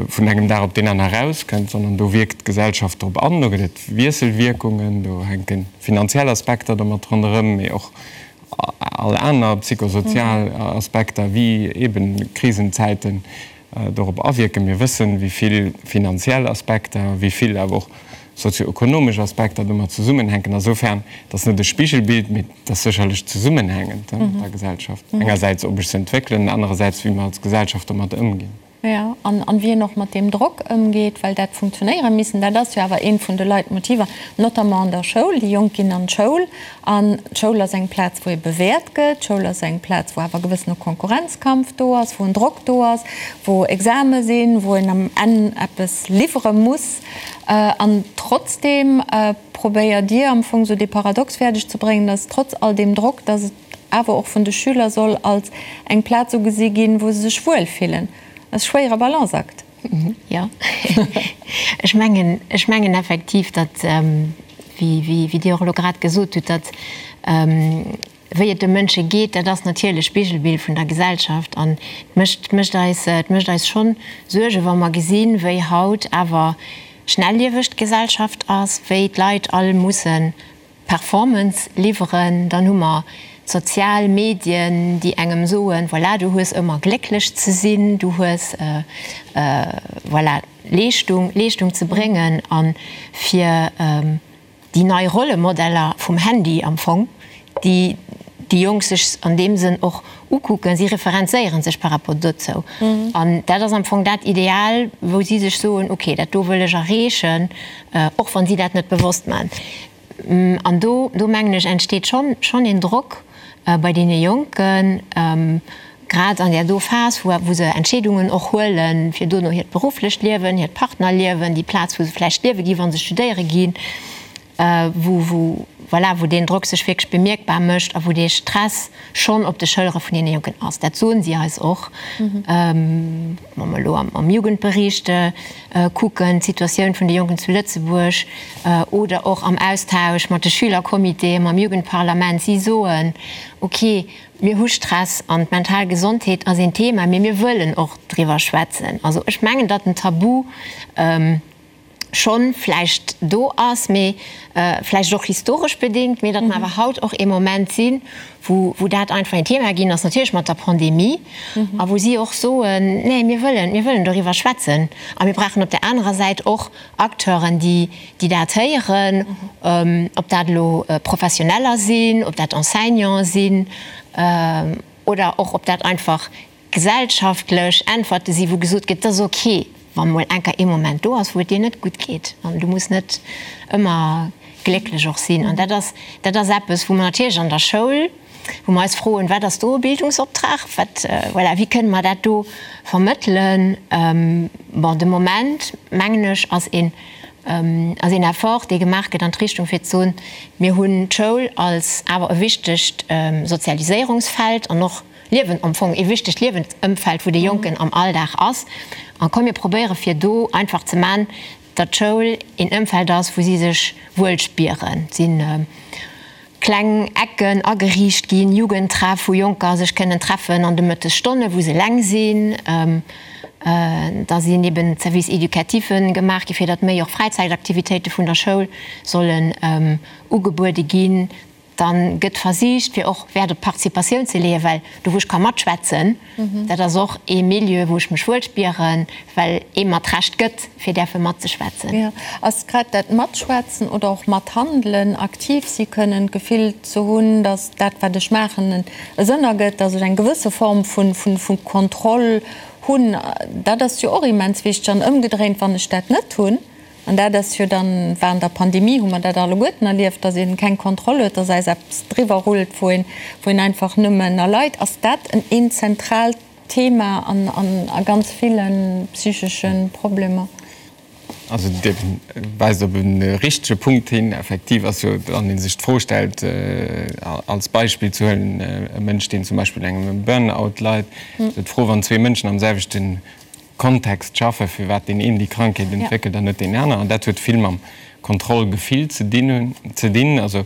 vun engem Dag op deen aner erauskënnt, sondern do wierkt d'Gesellschaft drop an, do gëtt et Wiesselwierkungen, do hänke finanziell Aspekter domat ronderëm, mee och all aner psychosozial Aspekter wéi eben Krisenzäiten dorop awierken. Mir wëssen, wéi vill finanziell Aspekter, wéi vill awer och sozioökonomesch Aspekter domat zesummenhänken. Asoufern, et ass net e Spigelbild, mee et ass sécherlech zesummenhängend mat der Gesellschaft. Engersäits, ob ech se entwéckelen, anerersäits, wéi mer als Gesellschaft domat ëmginn. Jo, an wéi een och mat deem Drock ëmgeet, well dat funktionéiere missen, dat ass jo awer eent vun de Leitmotiver, notamment an der Schoul. Déi Jonk ginn an d'Schoul an d'Schoul ass eng Plaz, wou ee bewäert gëtt. D'Schoul ass eng Plaz, wou awer e gewëssene Konkurrenzkampf do ass, wou en Drock do ass, wou Exame sinn, wou een am Enn eppes liwwere muss. An trotzdeem probéiert Dir am Fong esou dee Paradox fäerdeg ze bréngen, dass trotz all deem Drock, dass et awer och vun de Schüler soll als eng Plaz ugesi ginn, wou se sech wuel fillen. Dat ass e schwéiere Balanceakt. Jo, ech mengen, ech mengen effektiv, datt, wéi, wéi Dir och elo grad gesot hutt, datt. Wéi et de Mënsche geet, dat ass natierlech Spigelbild vun der Gesellschaft an et mécht, mécht eis, et mécht eis schonn Suergen, wa mer gesinn, wéi haut awer schnellieweg d'Gesellschaft ass, wéi d'Leit all musse Performance liwweren. Dann hu mer d'sozial Medien, déi engem soen, voilà, du hues ëmmer glécklech ze sinn, du hues, voilà, Leeschtung, Leeschtung ze bréngen a fir, Déi nei Rollemodeller vum Handy am Fong, déi déi Jonk sech an deem Sënn och ukucken, si referenzéiere sech par rapport dozou. An dat ass am Fong dat Ideal, wou si sech soen, ok, dat do wëll ech erreechen, och wann si dat net bewosst maachen. An do, do mengen ech, entsteet schonn, schonn een Drock bei deene Jonken, grad an där do Phas, wou wou se Entscheedungen och huelen, fir dono hiert berufflecht Liewen, hiert Partnerliewen, déi Plaz, wou se vläicht liewe ginn, wa se studéiere ginn, wou wou voilà, wou deen Drock sech wierklech bemierkbar mécht a wou dee Stress schonn op de Schëllere vun deene Jonken ass. Dat soen si eis och. Wa mer elo am Jugendbericht kucken, d'Situatioun vun de Jonken zu Lëtzebuerg, oder och am Austausch mat de Schülercomitéen, mam Jugendparlament, si soen, ok, Mir hu Stress an d'mental Gesondheet ass een Thema, mee mir wëllen och driwwer schwätzen. Also ech mengen, datt den Tabu schonn vläicht do ass, mee vläicht och historesch bedéngt, mee datt mer awer haut och ee Moment sinn, wou wou dat einfach een Thema ginn ass, natierlech mat der Pandemie, a wou si och soen, nee mir wëllen, mir wëllen doriwwer schwätzen a mir brauchen op där anerer Säit och Acteuren, déi déi dat héieren, ob dat elo Professioneller sinn, ob dat Enseignanten sinn oder och ob dat einfach gesellschaftlech Äntwerte sinn, wou gesot gëtt, et ass ok, wa mol enker ee Moment do ass, wou et dir net gutt geet an du muss net ëmmer glécklech och sinn. An dat ass, dat ass eppes, wou mer natierlech an der Schoul, wou mer eis froen, Wat ass do e Bildungsoptrag? Wat, voilà, wéi kënne mer dat do vermëttelen? Bon, de Moment, mengen ech, ass een, ass een Effort, dee gemaach gëtt an d'Richtung, fir ze soen, Mir hunn d'Schoul als awer e wichtegt Sozialiséierungsfeld an och Liewen, am Fong ee wichtegt Liewensëmfeld, wou de Jonken am Alldag ass. A komm, mir probéiere fir do einfach ze man, datt d'Schoul een Ëmfeld ass, wou si sech wuel spieren. Et sinn kleng Ecken ageriicht ginn, Jugendtreff, wou Jonker sech kënnen treffen an de Mëttesstonnen, wou se eleng sinn. Da sinn eben Services éducatifs gemaach gi fir datt méi och Fräizäitaktivitéite vun der Schoul sollen ugebuede ginn. Dann gëtt versicht fir och Wäert op d'Participatioun ze leeën, well do wou ech ka matschwätzen, dat ass och ee Milieu wou ech mech wuel spieren, well ee mer d'Recht gëtt fir däerfe matzeschwätzen. Jo, ass grad dat Matschwätzen oder och Mathandelen, aktiv si kënnen, d'Gefill ze hunn, datt dat wat ech maachen e Sënn ergëtt, datt ech eng gewësse Form vu Kontroll hunn, dat ass jo och immens wichteg. An ëmgedréint, wann ech dat net hunn, An dat ass jo dann, war an der Pandemie, hu mer dat alleguerten erlieft, dass ee keng Kontroll huet, dass eis eppes driwwer rullt, wou een, wou een einfach nëmmen erleit. Ass dat en een zentraalt Thema an, an a ganz ville psychesche Problemer? Also Dir weist op e richtege Punkt hin. Effektiv ass jo, wann ee sech d'Fro stellt, als Beispill ze huelen, e Mënsch, deen zum Beispill un engem Burnout leit, esou d'Fro, wann zwee Mënschen am selwechten Kontext schaffen, firwat deen een déi Krankheet entwéckelt an net deen aner. An dat huet vill mam Kontrollgefill ze dinn, ze dinn. Also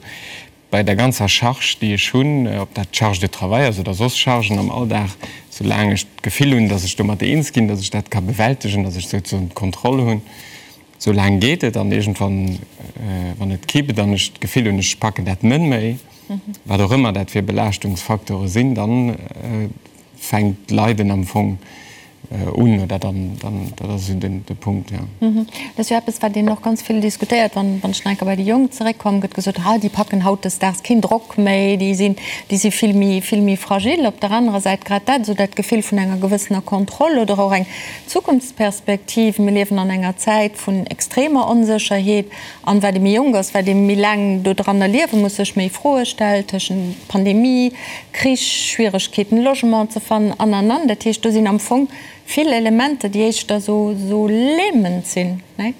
bei der ganzer Charge, déi ech hunn, ob dat d'Charge de travail ass oder soss Chargen am Alldag, soulaang ech d'Gefill hunn, datt ech domat eens ginn, datt ech dat ka bewältegen, datt ech souzesoen d'Kontroll hunn, soulaang geet et. An iergendwann, wann et kippt an ech d'Gefill hunn, ech packen dat net méi, wat och ëmmer dat fir Belaaschtungsfacteure sinn, dann fänkt d'Leiden am Fong un, oder dann, dann, dat ass esou den, de Punkt, jo. Dat ass jo eppes, wat een och ganz vill diskutéiert. Wann, wann ech nach eng Kéier bei déi Jonk zeréckkommen, gëtt gesot, Ha, déi packen hautdesdaags keen Drock méi, déi sinn, déi si vill méi, vill méi fragil. Op der anerer Säit grad dat, esou dat Gefill vun enger gewëssener Kontroll oder och eng Zukunftsperspektiv. Mir liewen an enger Zäit vun extremer Onsécherheet. An wat ee méi jonk ass, wat ee méi laang dodranner liewe muss, sech méi Froe stellt, tëschent Pandemie, Krich, Schwieregkeeten Logement ze fannen an an an. Dat heescht, do sinn am Fong vill Elementer, déi éischter sou lähmend sinn, nee?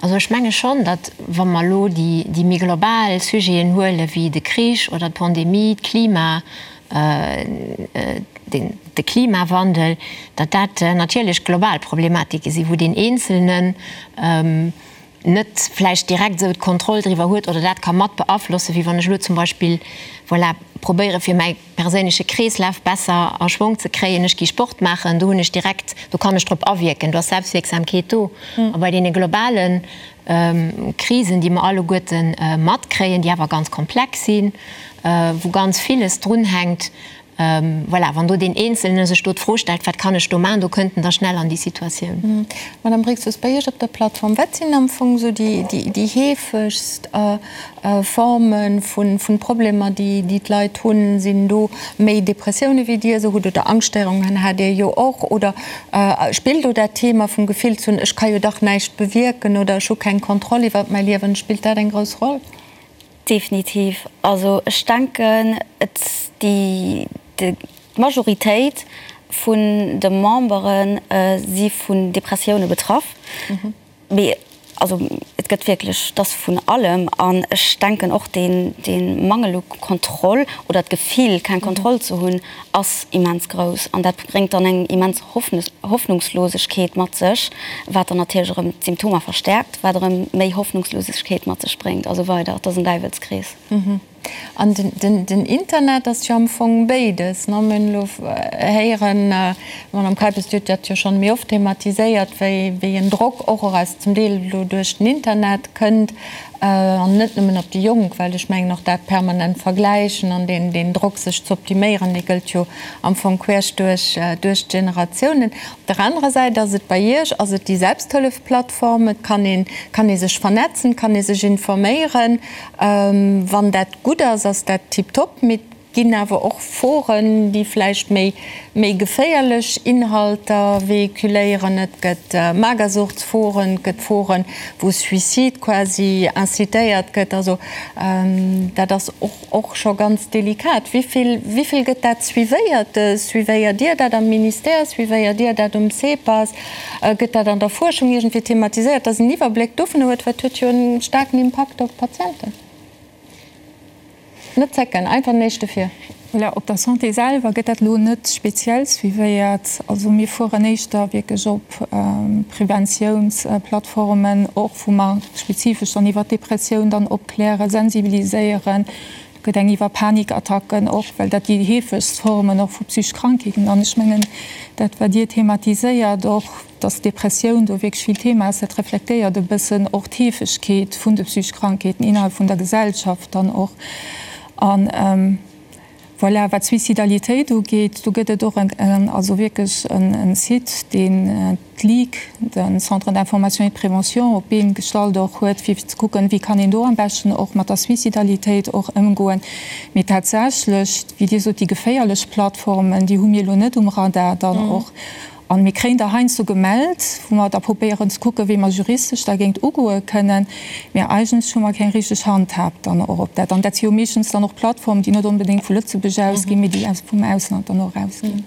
Also ech menge schonn, datt wa mer elo déi méi global Sujeten huele wéi de Krich oder d'Pandemie, d'Klima, de Klimawandel, datt dat natierlech global Problematike sinn, wou deen Eenzelnen. net vläicht direkt esou d'Kontroll driwwer huet oder dat ka mat beaflossen, wéi wann ech elo zum Beispill, voilà, probéiere fir mäi perséinleche Kreeslaf besser a Schwong ze kréien, ech gi Sport maachen, do hunn ech direkt, do kann ech drop awierken, do ass Selbstwierksamkeet do. A bei deene globale Krisen, déi mer alleguerte matkréien, déi awer ganz komplex sinn, wou ganz villes drunhänkt, Voilà, wann do deen Eenzelne sech do d'Fro stellt, wat kann ech do maachen, do kënnt en da schnell an déi Situatioun. Madame Brixius, bei Iech op der Plattform, wat sinn am Fong esou déi heefegst Forme vu Problemer, déi d'Leit hunn? Sinn do méi Depressioune wéi Dir se hutt oder Angschtstéierungen hat Dir jo och? Oder spillt do dat Thema vum Gefill ze hunn, ech ka jo dach näischt bewierken oder ech hu keng Kontroll iwwert mäi Liewen, spillt dat eng grouss Roll? Definitiv. Also ech denken, et déi d'Majoritéit vun de Membere si vun Depressioune betraff. Mee also et gëtt wierklech, et ass vun allem. An ech denken och deen dee Mangel u Kontroll oder d'Gefill keng Kontroll ze hunn, ass immens grouss. An dat bréngt dann eng immens Hoffnungslosegkeet mat sech, wat dann natierlech erëm d'Symptomer verstäerkt, wat erëm méi Hoffnungslosegkeet mat sech bréngt a sou weider. Et ass en Däiwelskrees. An den Internet ass jo am Fong béides, ne? Mir hunn elo héieren, d'Madame Kuijpers, Dir hutt dat jo schonn méi oft thematiséiert, wéi en Drock och aus zum Deel elo duerch den Internet kënnt, An net nëmmen op déi Jonk, well ech mengen och dat permanent Vergläichen an deen deen Drock sech ze optiméieren, dee gëllt jo am Fong queesch duerch duerch d'Generatiounen. Op der anerer Säit ass et bei Iech, ass et déi Selbsthëllefplattform, et kann een kann ee sech vernetzen, kann ee sech informéieren. Wann dat gutt ass, ass dat tiptop, mee et ginn awer och Foren, déi vläicht méi méi geféierlech Inhalter véhiculéieren. Et gëtt Magersuchtsforen, et gëtt Foren, wou Suicide quasi incitéiert gëtt. Also dat ass och och scho ganz delikat. Wéi vill, wéi vill gëtt dat suivéiert? Suivéiert Dir dat am Ministère? Suivéiert Dir dat um CEPAS? Gëtt dat an der Fuerschung iergendwéi thematiséiert, dass een Iwwerbléck dovun huet? Well et huet jo e staarken Impakt op d'Patienten. Net zécken, einfach den éischte vir. Voilà, op der Santé selwer gëtt dat elo net speziell suivéiert. Also mir fueren éischter wierklech op Preventiounsplattformen, och wou mer spezifesch dann iwwer d'Depressioun dann opklären, sensibiliséieren. Do gëtt eng iwwer Panikattacken och, well dat déi heefegst Formen och vu psychesch Krankheeten. An ech mengen, dat wat Dir thematiséiert och, Dass d'Depressioun do wierklech vill Thema ass, dat reflektéiert e bëssen och d'Heefegkeet vun de psychesch Krankheeten innerhalb vun der Gesellschaft dann och. An voilà, wat d'Suicidalitéit ugeet, do gëtt et och en, also wierklech en Site, deen d'Ligue, de Centre d'information et de prévention, op d'Been gestallt och huet, fir ze kucken, wéi kann een do am beschten och mat der Suicidalitéit och ëmgoen. Mee tatsächlech, wéi Dir sot, déi geféierlech Plattformen, déi hu mir elo net um Radar dann och. An mir kréien der heiansdo gemellt, wou mer da probéieren ze kucken, wéi mer juristesch dergéint ugoe kënnen. Mä eigentlech hu mer keng richteg Handhab dann och op dat. An dat si jo meeschtens dann och Plattformen, déi net onbedéngt vu Lëtzebuerg ausginn, mee déi vum Ausland dann och erausginn.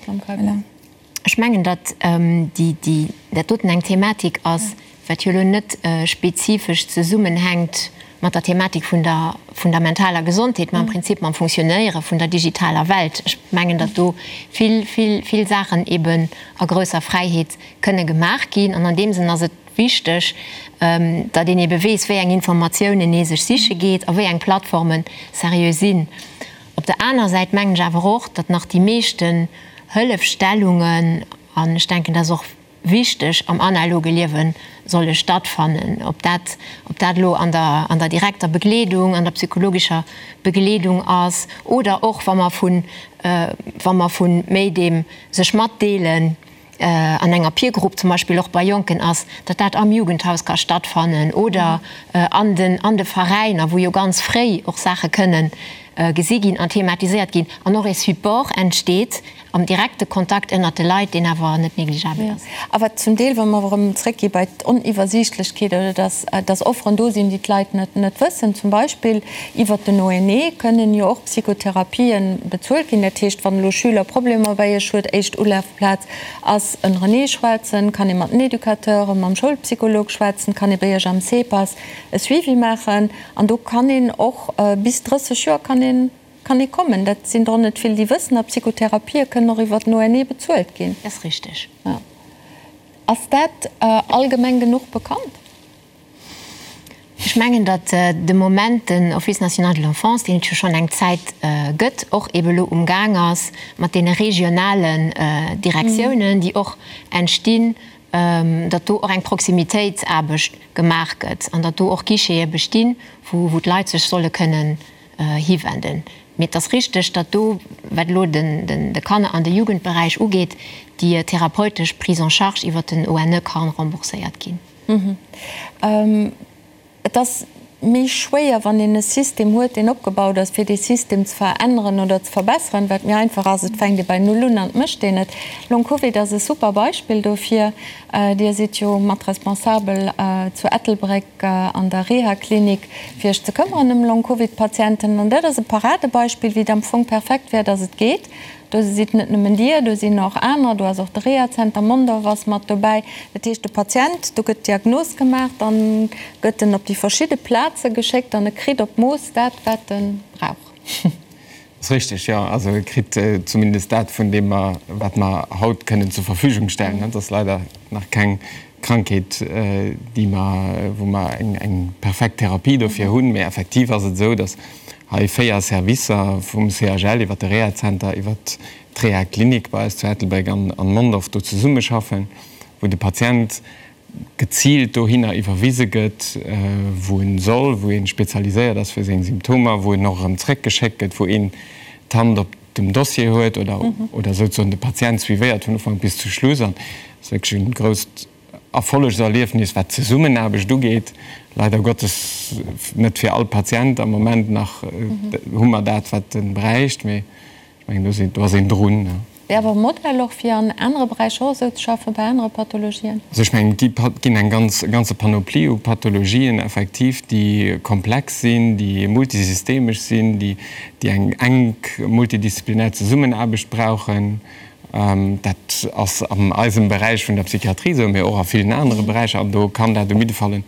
Voilà. Ech mengen, datt déi, dat doten eng Thematik ass, wat jo elo net spezifesch zesummenhänkt mat der Thematik vun der vun der mentaler Gesondheet, mä am Prinzip mam Funktionéiere vun der digitaler Welt. Ech mengen, datt do vill, vill, vill Saachen eben a grousser Fräiheet kënne gemaach ginn. An an deem Sënn ass et wichteg, datt een ebe weess, wéi eng Informatiounen ee sech siche geet a wéi eng Plattforme seriö sinn. Op der anerer Säit mengen ech awer och, datt nach déi meeschten Hëllefstellungen, an ech denken, dat ass och wichteg, am analoge Liewe solle stattfannen. Ob dat, ob dat elo an der, an der direkter Begleedung, an der psychologescher Begleedung ass oder och wa mer vun, wa mer vu méi deem sech matdeelen an enger Peer-Group zum Beispill och bei Jonken ass, datt dat am Jugendhaus ka stattfannen oder an den, an de Veräiner, wou jo ganz fréi och Saache kënnen gesi ginn an thematiséiert ginn an och e Support entsteet am direkte Kontakt ënnert de Leit, deen awer net négligeabel ass. A wat zum Deel, wa mer erëm zréckgi bei d'Oniwwersiichtlechkeet oder dass, dass Offeren do sinn, déi d'Leit net, net wëssen, zum Beispill iwwert den ONE kënnen jo och Psychotherapien bezuelt ginn. Dat heescht, wann elo Schüler Problemer bei Iech huet, éischt Ulafplaz ass ënnerenee schwätzen, kann ee mat den Educateuren, mam Schoulpsycholog schwätzen, kann ee bei Iech am CEPAS e Suivi maachen. An do kann een och bis 30 Joer kann een, kann ee kommen. Dat sinn der och net vill, déi wëssen. A Psychotherapië kënnen och iwwer den ONE bezuelt ginn. Dat ass richteg. Jo. Ass dat allgemeng genuch bekannt? Ech mengen, datt de Moment den Office national de l'enfance, deen et jo schonn eng Zäit gëtt, och eebe lo umgaang ass mat deene regionalen Direktiounen, déi och entstinn, datt do och eng Proximitéitsaarbecht gemaach gëtt an datt do och Guichete bestinn, wou d'Leit sech solle kënnen hiwenden. Mee et ass richteg, datt do, wat elo de Kanner an de Jugendberäich ugeet, déi therapeutesch Prise en charge iwwert den ONE kann rembourséiert ginn. Et ass méi schwéier, wann een e System huet, deen opgebaut ass, fir dee System ze veränneren oder ze verbesseren. Wat méi einfach ass, et fänkt ee bei Null un an et mécht een et. Long Covid ass e super Beispill dofir. Dir sidd jo mat responsabel zu Ettelbréck an der Rehaklinik, fir Iech ze këmmeren ëm Long Covid-Patienten. An dat ass e Paradebeispill, wéi et am Fong perfekt wär, dass et geet. Do sidd net nëmmen Dir, do sinn och aner, do ass och de Rehazenter Mondorf ass mat dobäi. Dat heescht, de Patient, do gëtt d'Diagnos gemaach, dann gëtt en op déi verschidde Plaze geschéckt an e kritt op d'Mooss dat, wat e brauch. Ass richteg, jo. Also e kritt zumindest dat, vun deem mer, wat mer haut kënnen zur Verfügung stellen. Et ass leider nach keng Krankheet, déi mer, wou mer eng perfekt Therapie dofir hunn. Mee effektiv ass et esou, datt hei 4 Servicer, vum CHL iwwer de Rehazenter, iwwer d'Rehaklinik bei eis zu Ettelbréck an Mondorf do zesummeschaffen, wou de Patient geziilt dohinner iwwerwise gëtt, wou en soll, wou ee spezialiséiert ass fir seng Symptomer, wou en och erëm zréckgeschéckt gëtt, wou een d'Hand op dem Dossier huet oder oder souzesoen de Patient suivéiert vun Ufank bis zu Schluss. An et ass wierklech e grousst Erfollegserliefnis, wat d'Zesummenaarbecht ugeet. Leider Gottes net fir all Patient am Moment nach hu mer dat, wat e bräicht, mee ech mengen, do sinn, do ass een drun. Wär awer e Modell och fir an anere Beräicher och esou ze schaffen, bei anere Pathologien? Also ech mengen, et ginn eng ganz, e ganze Panoplie u Pathologien effektiv, déi komplex sinn, déi multisystemesch sinn, déi, déi eng enk multidisziplinär Zesummenaarbecht brauchen. Dat ass an eisem Beräich vun der Psychiatrie esou, mee och a villen anere Beräicher. An do kann dat um jidde Fall e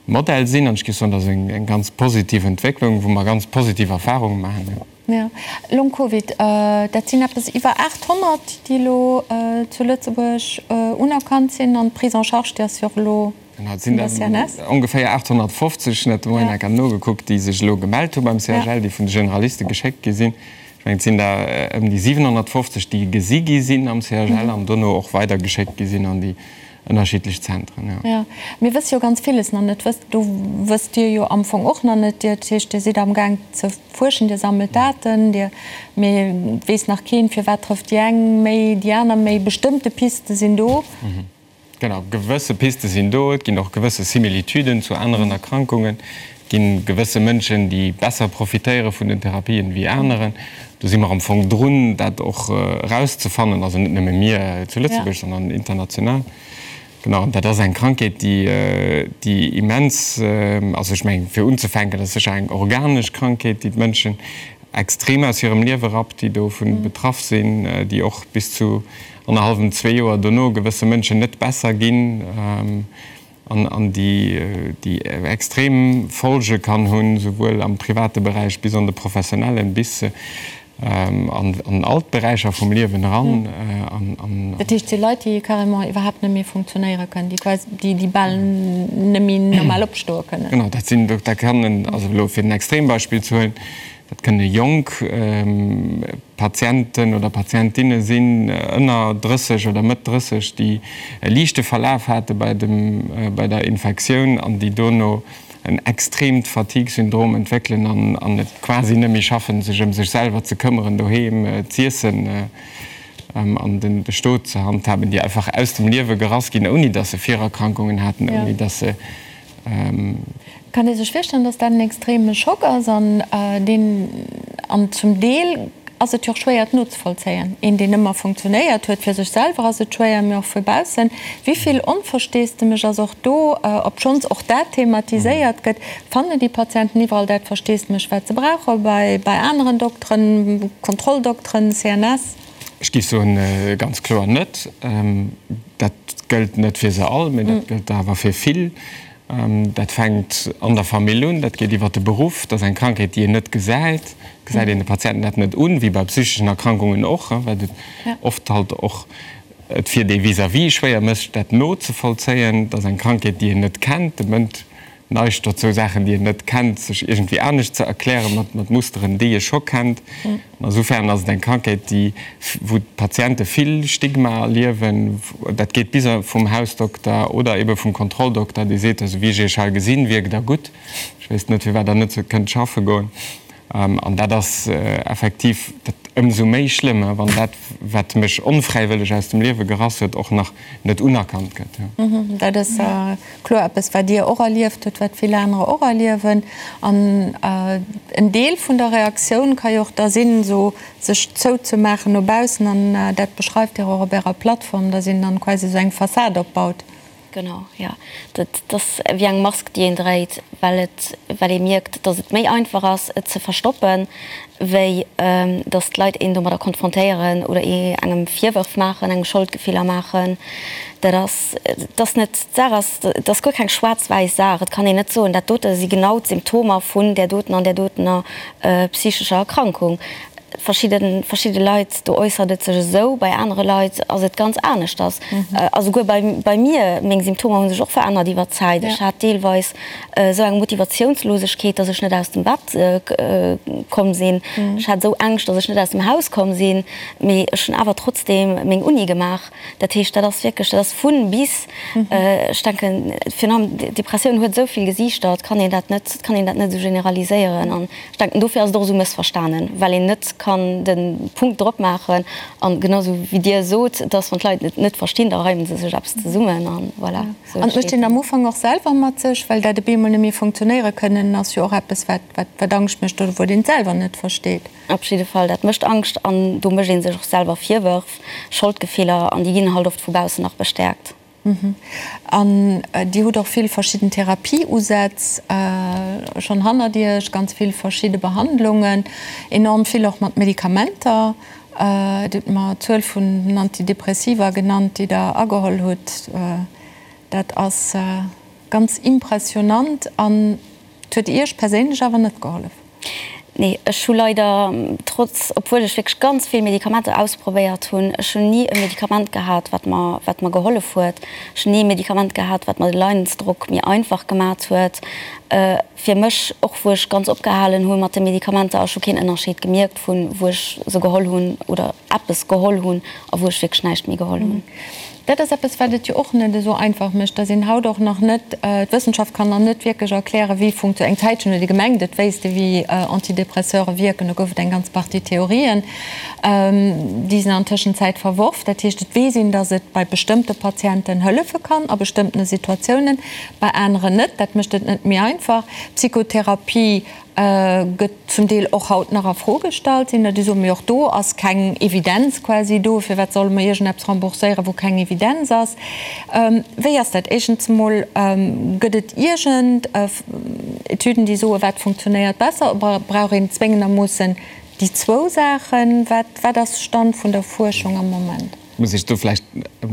Modell sinn. An ech géif soen, dat ass eng ganz positiv Entwécklung, wou mer ganz positiv Erfahrunge maachen. Jo, Long Covid, dat sinn eppes iwwer 800, déi elo zu Lëtzebuerg unerkannt sinn. An d'Prise en charge, déi ass jo och elo vun der CNS. Ongeféier 850, ech hat de Moien enker nogekuckt, déi sech elo gemellt hu beim CHL, déi vun de Generaliste geschéckt gi sinn. Ech mengen, et sinn der ëm déi 750, déi gesi gi sinn am CHL an dono och weidergeschéckt gi sinn an déi ënnerschiddlech Zentren, jo. Jo, mir wësse jo ganz villes nach net. Wësst, do wësst Dir jo am Fong och nach net. Dir, dat heescht, Dir sidd amgaang ze fuerschen, Dir sammelt Daten, Dir, mee et weess nach keen, firwat trëfft déi eng méi, déi aner méi. Bestëmmte Piste sinn do. Genau, gewësse Piste sinn do. Et ginn och gewësse Similitüden zu aneren Erkrankungen. Et gi gewësse Mënschen, déi besser profitéiere vun den Therapien wéi aneren. Do si mer am Fong drun, dat och erauszefannen, also net nëmme mir zu Lëtzebuerg, sondern international. Genau, an dat ass eng Krankheet, déi, déi immens, also ech mengen, fir unzefänken, dat ass sécher eng organesch Krankheet, déi d'Mënschen extrem aus hirem Liewe rappt, déi dovu betraff sinn, déi och bis zu annerhallwem, zwee Joer dono gewësse Mënschen net besser ginn. An déi déi extrem Folge kann hunn, souwuel am private Beräich bis an de professionellen, bis an all d'Beräicher vum Liewen eran. Dat heescht, et si Leit, déi carrément iwwerhaapt net méi funktionéiere kënnen, déi quasi, déi bal net méi normal opstoe kënnen. Genau, dat sinn, dat kann, also elo fir en Extrembeispill ze huelen, dat kënne jonk Patienten oder Patientinne sinn ënner 30 oder Mëtt 30, déi e liichte Verlaf hate bei dem, bei der Infektioun an déi dono en extreemt Fatigue-Syndrom entwéckelen an, an et quasi net méi schaffen, sech ëm sech selwer ze këmmeren, doheem z'iessen an den, de Stot ze handhaben, déi einfach aus dem Liewe gerass ginn, ouni datt se Virerkrankungen haten, ouni datt se. Kann ee sech virstellen, dass dat en extreme Schock ass an deen, an zum Deel ass et jo och schwéier et nozevollzéien, een deen ëmmer funktionéiert huet, fir sech selwer ass et schwéier, mee och vu baussen. Wéi vill Onversteesdemech ass och do, obschonns och dat thematiséiert gëtt, fannen déi Patienten iwwerall dat Versteesdemech wat se brauche bei bei aneren Dokteren, Kontrolldokteren, CNS? Ech géif soen, ganz kloer net. Dat gëllt net fir se all, mee dat gëllt awer fir vill. Dat fänkt an der Famill un, dat geet iwwer de Beruff. Dat ass eng Krankheet, déi een net gesäit. Gesäit een de Patienten dat net un, wéi bei psycheschen Erkrankungen och, wat et oft halt och et fir dee Vis-à-vis schwéier mécht, dat nozevollzéien. Dat ass eng Krankheet, déi een net kennt. De Mënsch. neigt dozou, Saachen, déi en net kennt, sech iergendwéi anescht ze erklären, mat, mat Musteren, déi e scho kennt. An esoufern ass et eng Krankheet, déi, wou d'Patiente vill Stigma erliewen. Dat geet bis vum Hausdokter oder ebe vum Kontrolldokter, dee seet, esou wéi ech Iech hei gesinn, wierkt Der gutt. Ech wéisst net, firwat Der net kënnt schaffe goen. An dat ass effektiv dat ëmsou méi schlëmm, wann dat, wat mech onfräiwëlleg aus dem Liewe gerass huet, och nach net unerkannt gëtt. Dat ass kloer eppes, wat Dir och erlieft hutt, wat vill anerer och erliewen. An en Deel vun der Reaktioun ka jo och da sinn, esou sech zouzemaachen no baussen. An dat beschreift Dir och op Ärer Plattform, dass een dann quasi esou eng Fassad opbaut. Genau, jo. Dat ass wéi eng Mask, déi een dréit, well et, well ee mierkt, datt et méi einfach ass, et ze verstoppen, wéi datt d'Leit een domadder konfrontéieren oder ee engem Virwërf maachen, engem Scholdgefiller maachen. Dat ass, et ass net, d'Saach ass, et ass guer keng schwaarz-wäiss Saach. Et kann een net soen, dat dote si genau d'Symptomer vun där doten an där dotener psychescher Erkrankung. Verschidde verschidde Leit, do äussert et sech esou, bei anere Leit ass et ganz aneschters. A souguer bei bei mir, meng Symptomer hu sech och verännert iwwer d'Zäit. Ech hat deelweis esou eng Motivatiounslosegkeet, datt ech net aus dem Bett komm sinn. Ech hat esou Ängscht, datt ech net aus dem Haus komm sinn. Mee ech hunn awer trotzdeem meng Uni gemaach. Dat heescht, dat ass wierklech, dat ass vun bis. Ech denken, virun allem d'Depressioun huet esou vill Gesiichter, et kann een dat net, et kann een dat net esou generaliséieren. An ech denken, dofir ass et och esou mëssverstanen, well een net kann de Punkt drop maachen. An genau esou wéi Dir sot, dass wann d'Leit et net verstinn, da reimen se sech eppes zesummen a voilà, esou An et mécht een am Ufank och selwer mat sech, well dat op eemol net méi funktionéiere kënnen ass jo och eppes, wat, wat, wat Angscht mécht oder wou een et selwer net versteet. Op jidde Fall, dat mécht Angscht an do mécht ee sech och selwer Virwërf, Scholdgefiller an déi ginn halt oft vu baussen nach bestäerkt. An Dir hutt och vill verschidden Therapie-Usätz schonn hannert Iech, ganz vill verschidde Behandlungen, enorm vill och mat Medikamenter. Dir hutt mer d'Zuel vun den Antidepressiva genannt, déi Der ageholl hutt. Dat ass ganz impressionant an et huet Iech perséinlech awer net gehollef? Nee, ech hu leider, trotz, obwuel ech wierklech ganz vill Medikamenter ausprobéiert hunn, ech hunn ni e Medikament gehat, wat mer, wat mer gehollef huet. Ech hunn ni e Medikament gehat, wat mer de Leidensdrock méi einfach gemat huet. Fir mech, och wou ech ganz opgehalen hu mat de Medikamenter, ech hu keen Ënnerscheed gemierkt vun wou ech se geholl hunn oder eppes geholl hunn a wou ech wierklech näischt méi geholl hunn. Dat ass eppes, wat et jo och net esou einfach mécht, dass een haut och nach net, d'Wëssenschaft kann nach net wierklech erklären, wéi funktio-, eng Zäitchen huet ee gemengt, et wéisst ee wéi Antidépresseure wierken, do gouf et eng ganz Partie Theorien, déi sinn an Tëschenzäit verworf. Dat heescht, et weess een, dass et bei bestëmmte Patienten hëllefe kann a bestëmmtene Situatiounen, bei aneren net. Dat mécht et net méi einfach. D'Psychotherapie Gëtt zum Deel och haut nach a Fro gestallt, sinn der déi soen, mee och do ass keng Evidenz quasi do, firwat solle mer iergendeppes rembourséieren, wou keng Evidenz ass? Wéi ass dat? Éischtens emol, gëtt et iergend Etüden, déi soen, wat funktionéiert besser, oder brauch een zwéngendermoossen déi zwou Saachen? Wat, wat ass Stand vun der Fuerschung am Moment? Muss ech do vläicht e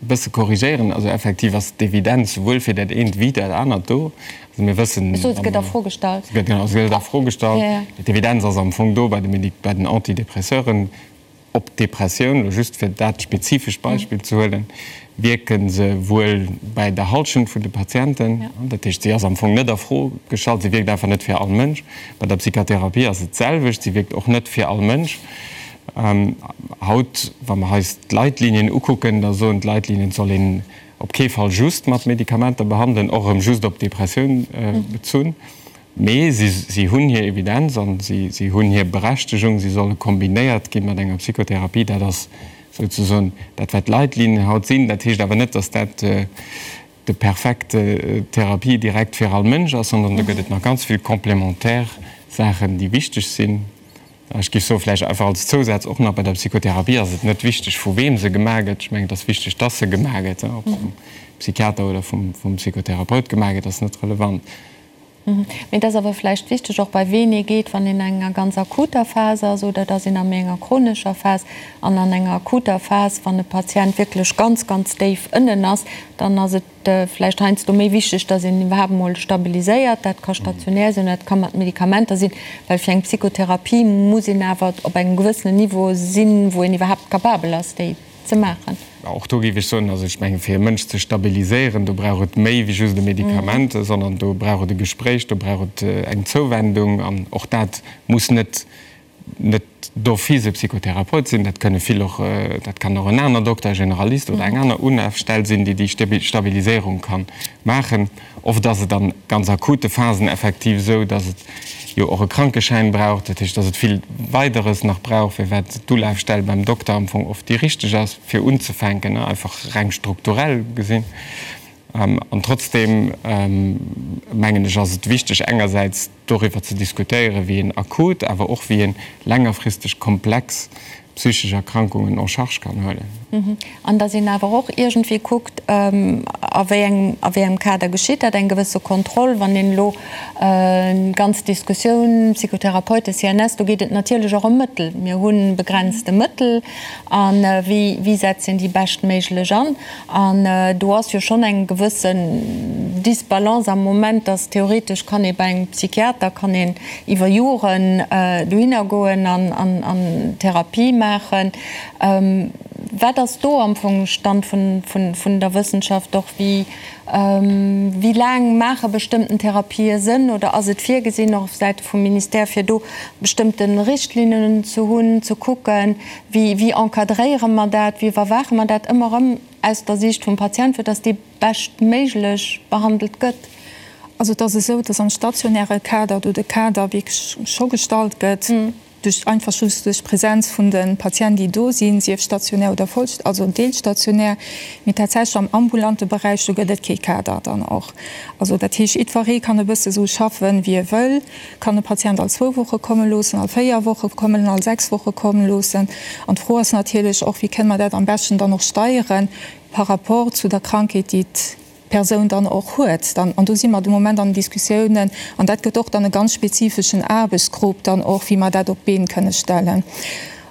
bësse korrigéieren. Also effektiv ass d'Evidenz souwuel fir dat eent wéi dat anert do. Also mir wëssen. Ech sot, se gëtt a Fro gestallt. Genau, se gëtt a Fro gestallt. D'Evidenz ass am Fong do bei de Medik, bei den Antidépresseuren. Op d'Depressioun, elo just fir dat spezifescht Beispill ze huelen, wierke se wuel bäi der Hallschent vun de Patienten. Dat heescht, si ass am Fong net a Fro gestallt, si wierkt einfach net fir all Mënsch. Bei der Psychotherapie ass et d'selwecht, si wierkt och net fir all Mënsch. Haut, wa mer eis d'Leitlinien ukucken, da soen d'Leitlinien, et soll een op kee Fall just mat Medikamenter behandelen, och erëm just op d'Depressioun bezunn. Mee si hunn hir Evidenz a si hunn hir Berechtegung, si solle kombinéiert gi mat enger Psychotherapie. Dat ass souzesoen dat, wat d'Leitlinien haut sinn. Dat heescht awer net, datt dat de perfekte Therapie direkt fir all Mënsch ass, sondern do gëtt et nach ganz vill complémentaire Saachen, déi wichteg sinn. Ech géif soen, vläicht einfach als Zousaz och nach, bei der Psychotherapie ass et net wichteg, vu weem se gemaach gëtt. Ech mengen, et ass wichteg, dass se gemaach gëtt. Ob se vum Psychiater oder vum Psychotherapeut gemaach gëtt, ass net relevant. Mee et ass awer vläicht wichteg och, bei ween ee geet, wann een an enger ganz akuter Phas ass oder et ass een a méi enger chronescher Phas. An an enger akuter Phas, wann e Patient wierklech ganz, ganz déif ënnen ass, dann ass et, vläicht heiansdo méi wichteg, dass een iwwerhaapt emol stabiliséiert. Dat ka stationär sinn, dat ka mat Medikamenter sinn, well fir eng Psychotherapie muss een awer op engem gewëssenen Niveau sinn, wou een iwwerhaapt capabel ass, déi. ze maachen. Och do géif ech soen, also ech mengen, fir e Mënsch ze stabiliséieren, do brauch et méi wéi just e Medikament, sondern do brauch et e Gespréich, do brauch et eng Zouwendung. An och dat muss net net d'office e Psychotherapeut sinn, dat kënne vill och, dat kann och en aner Dokter, e Generalist oder eng aner Ulafstell sinn, déi déi Stabiliséierung ka maachen. Oft ass et an ganz akute Phasen effektiv esou, dass et jo och e Krankeschäin brauch, dat heescht, dass et vill Weideres nach brauch, firwat d'Ulafstell beim Dokter am Fong oft déi richteg ass, fir unzefänken, einfach reng strukturell gesinn. An trotzdeem mengen ech, ass et wichteg engersäits doriwwer ze diskutéieren, wéi een akut, awer och wéi een längerfristeg komplex psychesch Erkrankungen en charge kann huelen. An datt een awer och iergendwéi kuckt, a wéi engem, a wéi engem Kader geschitt dat, eng gewësse Kontroll, wann een elo d'ganz Diskussioun Psychotherapeuten, CNS, do geet et natierlech och ëm Mëttel. Mir hu begrenzte Mëttel a wéi, wéi setzt een déi beschtméiglech an? An do ass jo schonn eng gewëssen Disbalance am Moment, dass theoretesch kann ee bei engem Psychiater kann een iwwer Joren dohinner goen an Therapie maachen. Wat ass do am Fong Stand vun der Wëssenschaft och? Wéi laang maache bestëmmten Therapië Sënn oder ass et virgesinn och op Säite vum Ministère fir do bestëmmte Richtlinnen ze hunn, ze kucken, Wéi, wéi encadréiere mer dat, wéi iwwerwaache mer dat ëmmer erëm aus der Siicht vum Patient, fir dass dee beschtméiglech behandelt gëtt? Also et ass esou, dass am stationäre Kader do de Kader wierklech scho gestallt gëtt, duerch einfach just duerch d'Präsenz vun de Patienten, déi do sinn, sief stationär oder voll, also deelstationär. Mee tatsächlech am ambulante Beräich, do gëtt et kee Kader dann och. Also dat heescht, jiddweree kann e bësse sou schaffen, wéi e wëll. Kann e Patient all zwou Woche komme loossen, all véier Woche kommen, all sechs Woche komme loossen? An d'Fro ass natierlech och, wéi kënne mer dat am beschten dann och steieren par rapport zu der Krankheet, déi d'Persoun dann och huet. Dann, an do si mer de Moment an den Diskussiounen, an dat gëtt och dann e ganz spezifeschen Aarbechtsgrupp dann och, wéi mer dat op d'Been kënne stellen.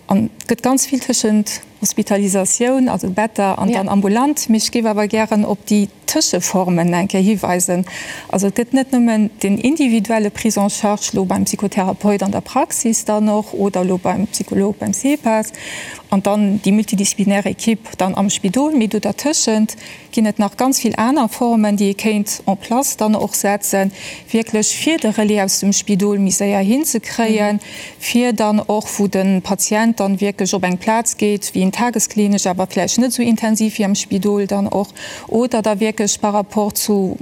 An et gëtt ganz vill tëschent Hospitalisatioun, also Better an dann ambulant. Mee ech géif awer gären op déi Tëscheformen eng Kéier hiweisen. Also et gëtt net nëmmen den individuelle Prise en charge elo beim Psychotherapeut an der Praxis dann och oder elo beim Psycholog beim CEPAS an dann déi multidisziplinär Equipe dann am Spidol, mee do dertëschent ginn et nach ganz vill aner Formen, déi ee kéint en place dann och setzen, wierklech fir de Relais aus dem Spidol méi séier hinzekréien, fir dann och, wou de Patient dann wierklech op eng Plaz geet, wéi en tagesklinesch, awer vläicht net esou intensiv wéi am Spidol dann och, oder da wierklech par rapport zu,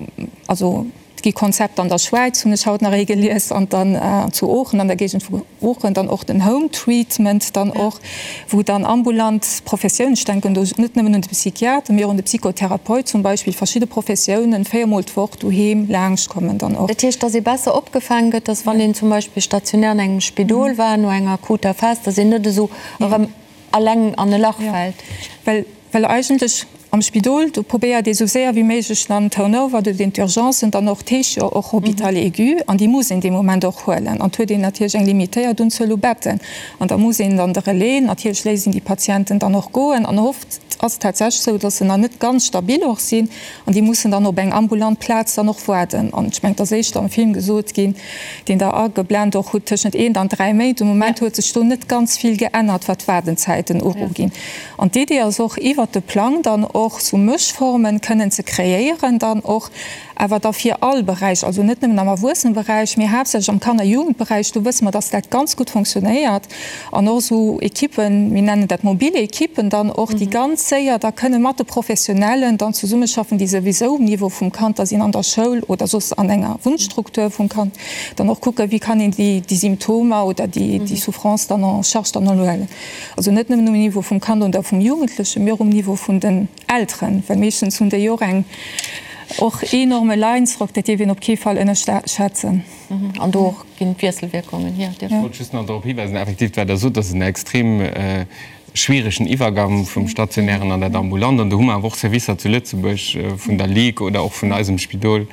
also et gi Konzepter an der Schwäiz, hunn ech haut nach ee gelies, an dann zu Oochen, an der Géigend vu Oochen, dann och den Home Treatment dann och, wou dann ambulant Professiounen, ech denken do net nëmmen un de Psychiater, mee och un de Psychotherapeut zum Beispill, verschidde Professiounen véiermol d'Woch doheem laangschtkommen dann och. Dat heescht, dass ee besser opgefaange gëtt, dass wann een zum Beispill stationär an engem Spidol war no enger akuter Phas, dass een net esou erëm alleng an e Lach fält. Well, well eigentlech am Spidol, do probéiert ee sou séier wéi méiglech dann Turnover, do huet een d'Urgencen dann och, d'heescht jo och Hôpital aigu, an déi muss een dee Moment och huelen. An et huet een natierlech eng limitéiert Unzuel u Betten. An da muss een dann de Relais, natierlech léisst een déi Patienten dann och goen. An oft ass et tatsächlech esou, dass se nach net ganz stabil och sinn an déi mussen dann op eng ambulant Plaz dann och waarden. An ech mengen, et ass éischter am Film gesot ginn, deen Der ageblent och hutt, tëschent eent an dräi Méint. De Moment huet sech do net ganz vill geännert, wat d'Waardenzäiten uruginn. An d'Idee ass och, iwwert de Plang dann och sou Mëschformen kënnen ze kreéieren, dann och awer da fir all Beräich, also net nëmmen am Erwuesseneberäich, mee haaptsächlech am Kanner Jugendberäich, do wësse mer, dass dat ganz gutt fonctionnéiert. An och esou Ekippen, mir nennen dat mobile Ekippen dann och, déi ganz séier da kënne mat de Professionellen dann zesummeschaffen, déi souwisou um Niveau vum Kand da sinn an der Schoul oder soss an enger Wunnstruktur vum Kand, dann och kucken, wéi kann een déi Symptomer oder déi Souffrance dann en charge dann huelen. Also net nëmmen um Niveau vum Kand oder vum Jugendlechen, mee och um Niveau vun den Elteren, well meeschtens hunn déi och eng och enorme Leidensdrock, dat dierf een op kee Fall ënnerschätzen. An do och ginn d'Wiesselwierkungen hier. Ech wollt just nach drop hiweisen, effektiv, wat Der sot, ass en extrem schwieregen Iwwergang vum Stationären an dat Ambulant. An do hu mer awer och Servicer zu Lëtzebuerg vun der Ligue oder och vun eisem Spidol,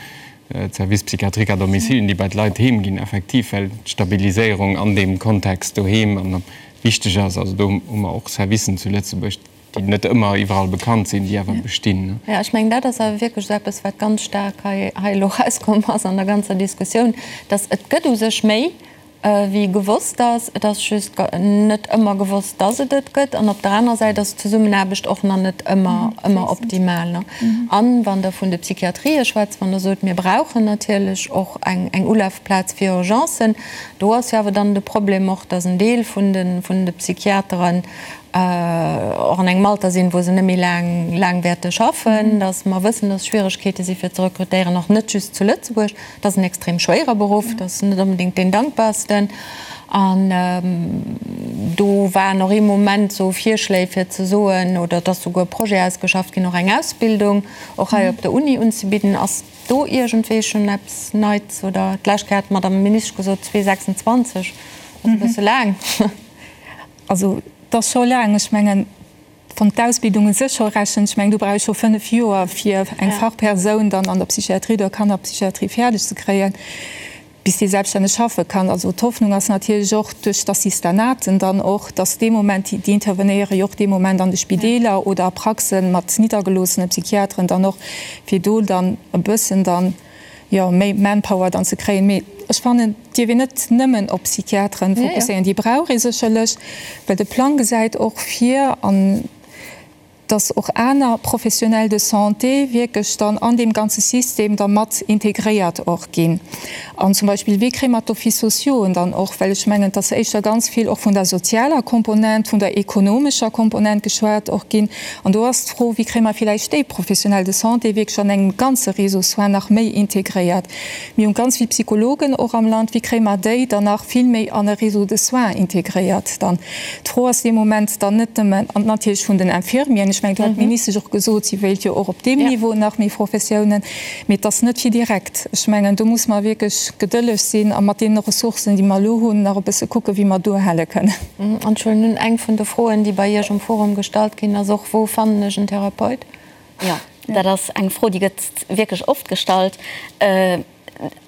d'Services psychiatriques à domicile, déi bei d'Leit heem ginn, effektiv, well d'Stabiliséierung an deem Kontext doheem an wichteg ass. Also do hu mer och Servicen zu Lëtzebuerg, déi net ëmmer iwwerall bekannt sinn, déi awer bestinn. Jo, ech mengen, dat ass awer wierklech esou eppes, wat ganz staark hei elo erauskomm ass an der ganzer Diskussioun, dass et gëtt u sech méi. Wéi gewosst ass. Et ass just net ëmmer gewosst, dass et et gëtt. An op der anerer Säit ass d'Zesummenaarbecht och nach net ëmmer, ëmmer optimal. An wann Der vun de Psychiatrië schwätzt, wann Der sot, mir brauchen natierlech och eng, eng Ulafplaz fir Urgencen, do ass jo awer dann de Problem och, dass en Deel vun de, vun de Psychiateren och an engem Alter sinn, wou se net méi laang, laang wäerte schaffen, dass mer wëssen, dass Schwieregkeete si fir ze rekrutéieren, och net just zu Lëtzebuerg. Et ass en extrem schwéiere Beruff, et ass net onbedéngt deen dankbarsten. An do waren och ee Moment esou Virschléi fir ze soen, oder et ass souguer e Projet ausgeschafft ginn, och eng Ausbildung och hei op der Uni unzebidden. Ass do iergendwéi schonn eppes Neits? Oder d'lescht Kéier hat d'Madame Ministesch gesot, 2026 ass e bësse laang. Also et ass scho laang. Ech mengen, Wann d'Ausbildung u sech scho rechent, ech mengen, do brauch ee scho 5 Joer, fir eng Fachpersoun dann an der Psychiatrie oder Kannerpsychiatrie fäerdeg ze kréien, bis déi selbststänneg schaffe kann. Also d'Hoffnung ass natierlech och duerch d'Assistanaten dann och, dass dee Moment, déi intervenéiere jo och dee Moment an de Spideeler oder a Praxe mat niddergeloossene Psychiateren dann och, fir do dann e bëssen dann, jo, méi Manpower dann ze kréien. Mee ech fannen, et dierf een net nëmmen op Psychiateren fokusséieren. Déi brauch ee sécherlech, well de Plang gesäit och vir, an dass och aner Professionnels de santé wierklech dann an deem ganze System da mat integréiert och ginn. An zum Beispill, wéi kréie mer d'Offices sociauxen dann och, well ech mengen, et ass éischter ganz vill och vun der sozialer Komponent, vun der ekonomescher Komponent geschwat och ginn. An do ass d'Fro, Wéi kréie mer villäicht déi Professionnels de santé wierklech an engem ganze Réseau soins nach méi integréiert? Mir hu ganz vill Psychologen och am Land. Wéi kréie mer déi dann nach vill méi an e Réseau de soins integréiert dann? D'Fro ass dee Moment dann net nëmmen, an natierlech vun den Infirmieren, ech mengen, do hat d'Ministesch och gesot, si wéilt jo och op deem Niveau nach méi Professiounen, mee et ass net fir direkt. Ech mengen, do muss mer wierklech gedëlleg sinn a mat deene Ressourcen, déi mer elo hunn, nach e bësse kucken, wéi mer duerhale kënnen. An ech huelen un, eng vun de Froen, déi bei Iech um Forum gestallt ginn, ass och, Wou fannen ech en Therapeut? Jo, dat ass eng Fro, déi gëtt wierklech oft gestallt.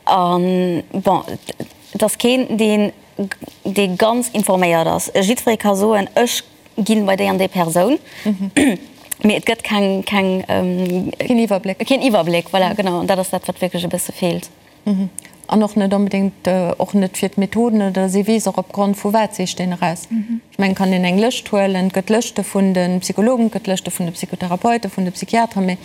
An, bon, et ass keen, deen, dee ganz informéiert ass. Jiddweree ka soen, ech ginn bei déi an déi Persoun, mee et gëtt keng, keng, Keen Iwwerbléck. Keen Iwwerbléck, voilà, genau. An dat ass dat, wat wierklech e bësse feelt. An och net onbedéngt, och net fir d'Methoden oder si weess och opgrond vu wat sicht een eraus. Ech mengen, kann een eng Lëscht huelen, et gëtt Lëschte vun de Psychologen, et gëtt Lëschte vun de Psychotherapeuten, vun de Psychiateren, mee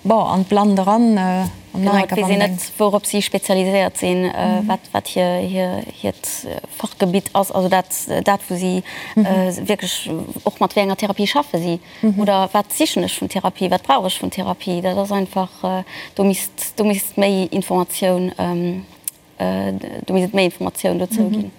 bon, an d'Blannt eran an nach eng Kéier wann een. Genau, et weess een net, wourop si spezialiséiert sinn, wat, wat hir, hir, hiert Fachgebitt ass, also dat, dat wou si wierklech och mat wéi enger Therapie schaffe si. Oder wat sichen ech vun Therapie, wat brauch ech vun Therapie? Dat ass einfach, do misst, do misst méi Informatioun, do misst et méi Informatioun dozou ginn.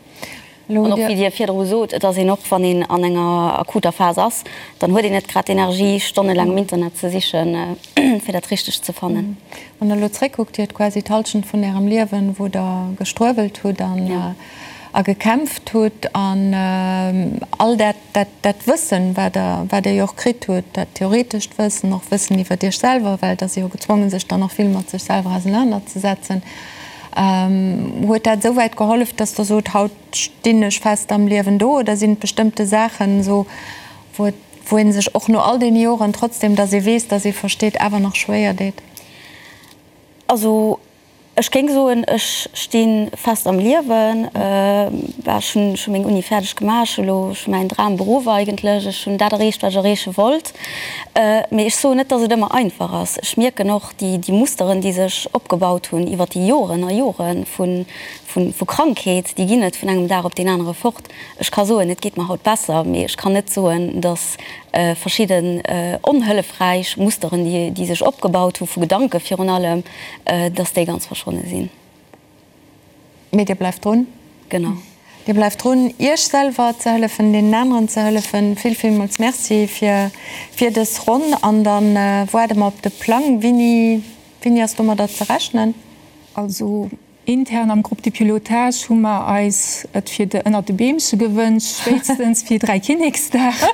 An och wéi Dir virdru sot, et ass een och, wann een an enger akuter Phas ass, dann huet een net grad d'Energie, stonnelaang am Internet ze sichen, fir dat Richtegt ze fannen. Wann Der elo zréckkuckt, Dir hutt quasi d'Hallschent vun Ärem Liewen, wou Der gestruewelt hutt an a gekämpft hutt an all dat, dat, dat Wëssen, wat Der, wat Der jo och kritt hutt, dat theoretescht Wëssen, och Wëssen iwwer Iech selwer, well et ass ee jo gezwongen, sech dann och vill mat sech selwer ausenanerzesetzen, huet dat esouwäit gehollef, dass Der sot, haut stinn ech fest am Liewen do? Oder sinn et bestëmmte Saachen esou, wou et, wou ee sech och no all deene Joren, trotzdem dass ee weess, dass ee versteet, awer nach schwéier deet? Also Ech géing soen, ech sti fest am Liewen. Ech hunn scho meng Uni fäerdeg gemaach, ech hu lo scho mäin Dramberuff eigentlech, ech hunn dat erreecht, wat ech erreeche wollt. Mee ech soen net, datt et ëmmer einfach ass. Ech mierken och déi Musteren, déi sech opgebaut hunn iwwer déi Joren a Jore vu Krankheet, déi ginn net vun engem Dag op deen anere fort. Ech ka soen, et geet mer haut besser, mee ech kann net soen, datt verschidden onhëllefräich Musteren, déi sech opgebaut hu vu Gedanke virun allem, datt déi ganz verschwonne sinn. Mee Dir bleift drun. Genau. Dir bleift drun, Iech selwer ze hëllefen, deenen aneren ze hëllefen. Vill, villmools Merci fir, fir dës Ronn. An da waarde mer op de Plang. Wéini, wéini ass domadder ze rechnen? Also Intern am Groupe de pilotage hu mer eis et fir de ënnert de Beemche gewënscht, spéitstens fir Dräikinneksdag.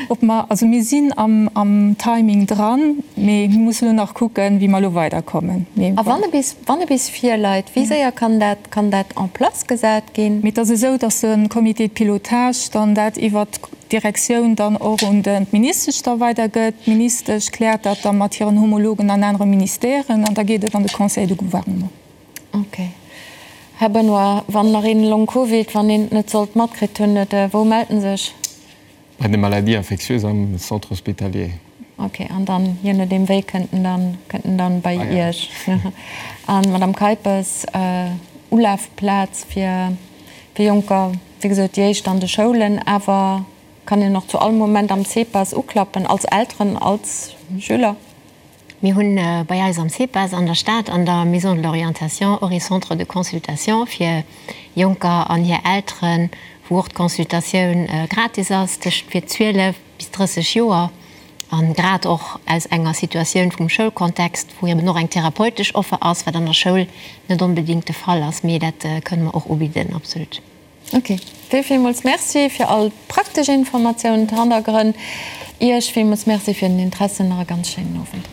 Ob mer, also mir sinn am am Timing dran, mee mir mussen elo nach kucken, wéi mer elo weiderkommen. Mee A wann e bis, wann e bis virleit, wéi séier kann dat, kann dat en place gesat ginn? Mee et ass esou, datt de Comité de pilotage dann dat iwwert d'Direktioun dann och un de d'Ministesch da weidergëtt. D'Ministesch kläert dat da mat hiren Homologen an anere Ministèren an da geet et an de Conseil de gouvernement. Ok. Här Benoy, wann nach een Long Covid, wann een et net sollt matkritt hunn, et, wou mellt en sech? Bei de Maladies infectieuses am Centre hospitalier. Ok, an dann, je nodeem wéi, kënnt en dann, kënnt en dann bei Iech. An Madame Keipes, Ulafplaz fir, fir Jonker, wéi gesot, déi éischt an de Schoulen, awer kann een och zu all Moment am CEPAS uklappen, als Elteren, als Schüler? Mir hunn bei eis am CEPAS an der Stad an der Maison de l'orientation och ee Centre de consultation fir Jonker an hir Elteren, wou och d'Consultatioun gratis ass tëscht fir 12 bis 30 Joer a grad och aus enger Situatioun vum Schoulkontext, wou eben och eng therapeutesch Offer ass, wat an der Schoul net onbedéngt de Fall ass, mee dat kënne mer och ubidden, absolut. Ok, vill villmools Merci fir all praktesch Informatiounen, d'Hannergrënn. Iech villmools Merci fir den Interesse. Nach e ganz schéinen Owend.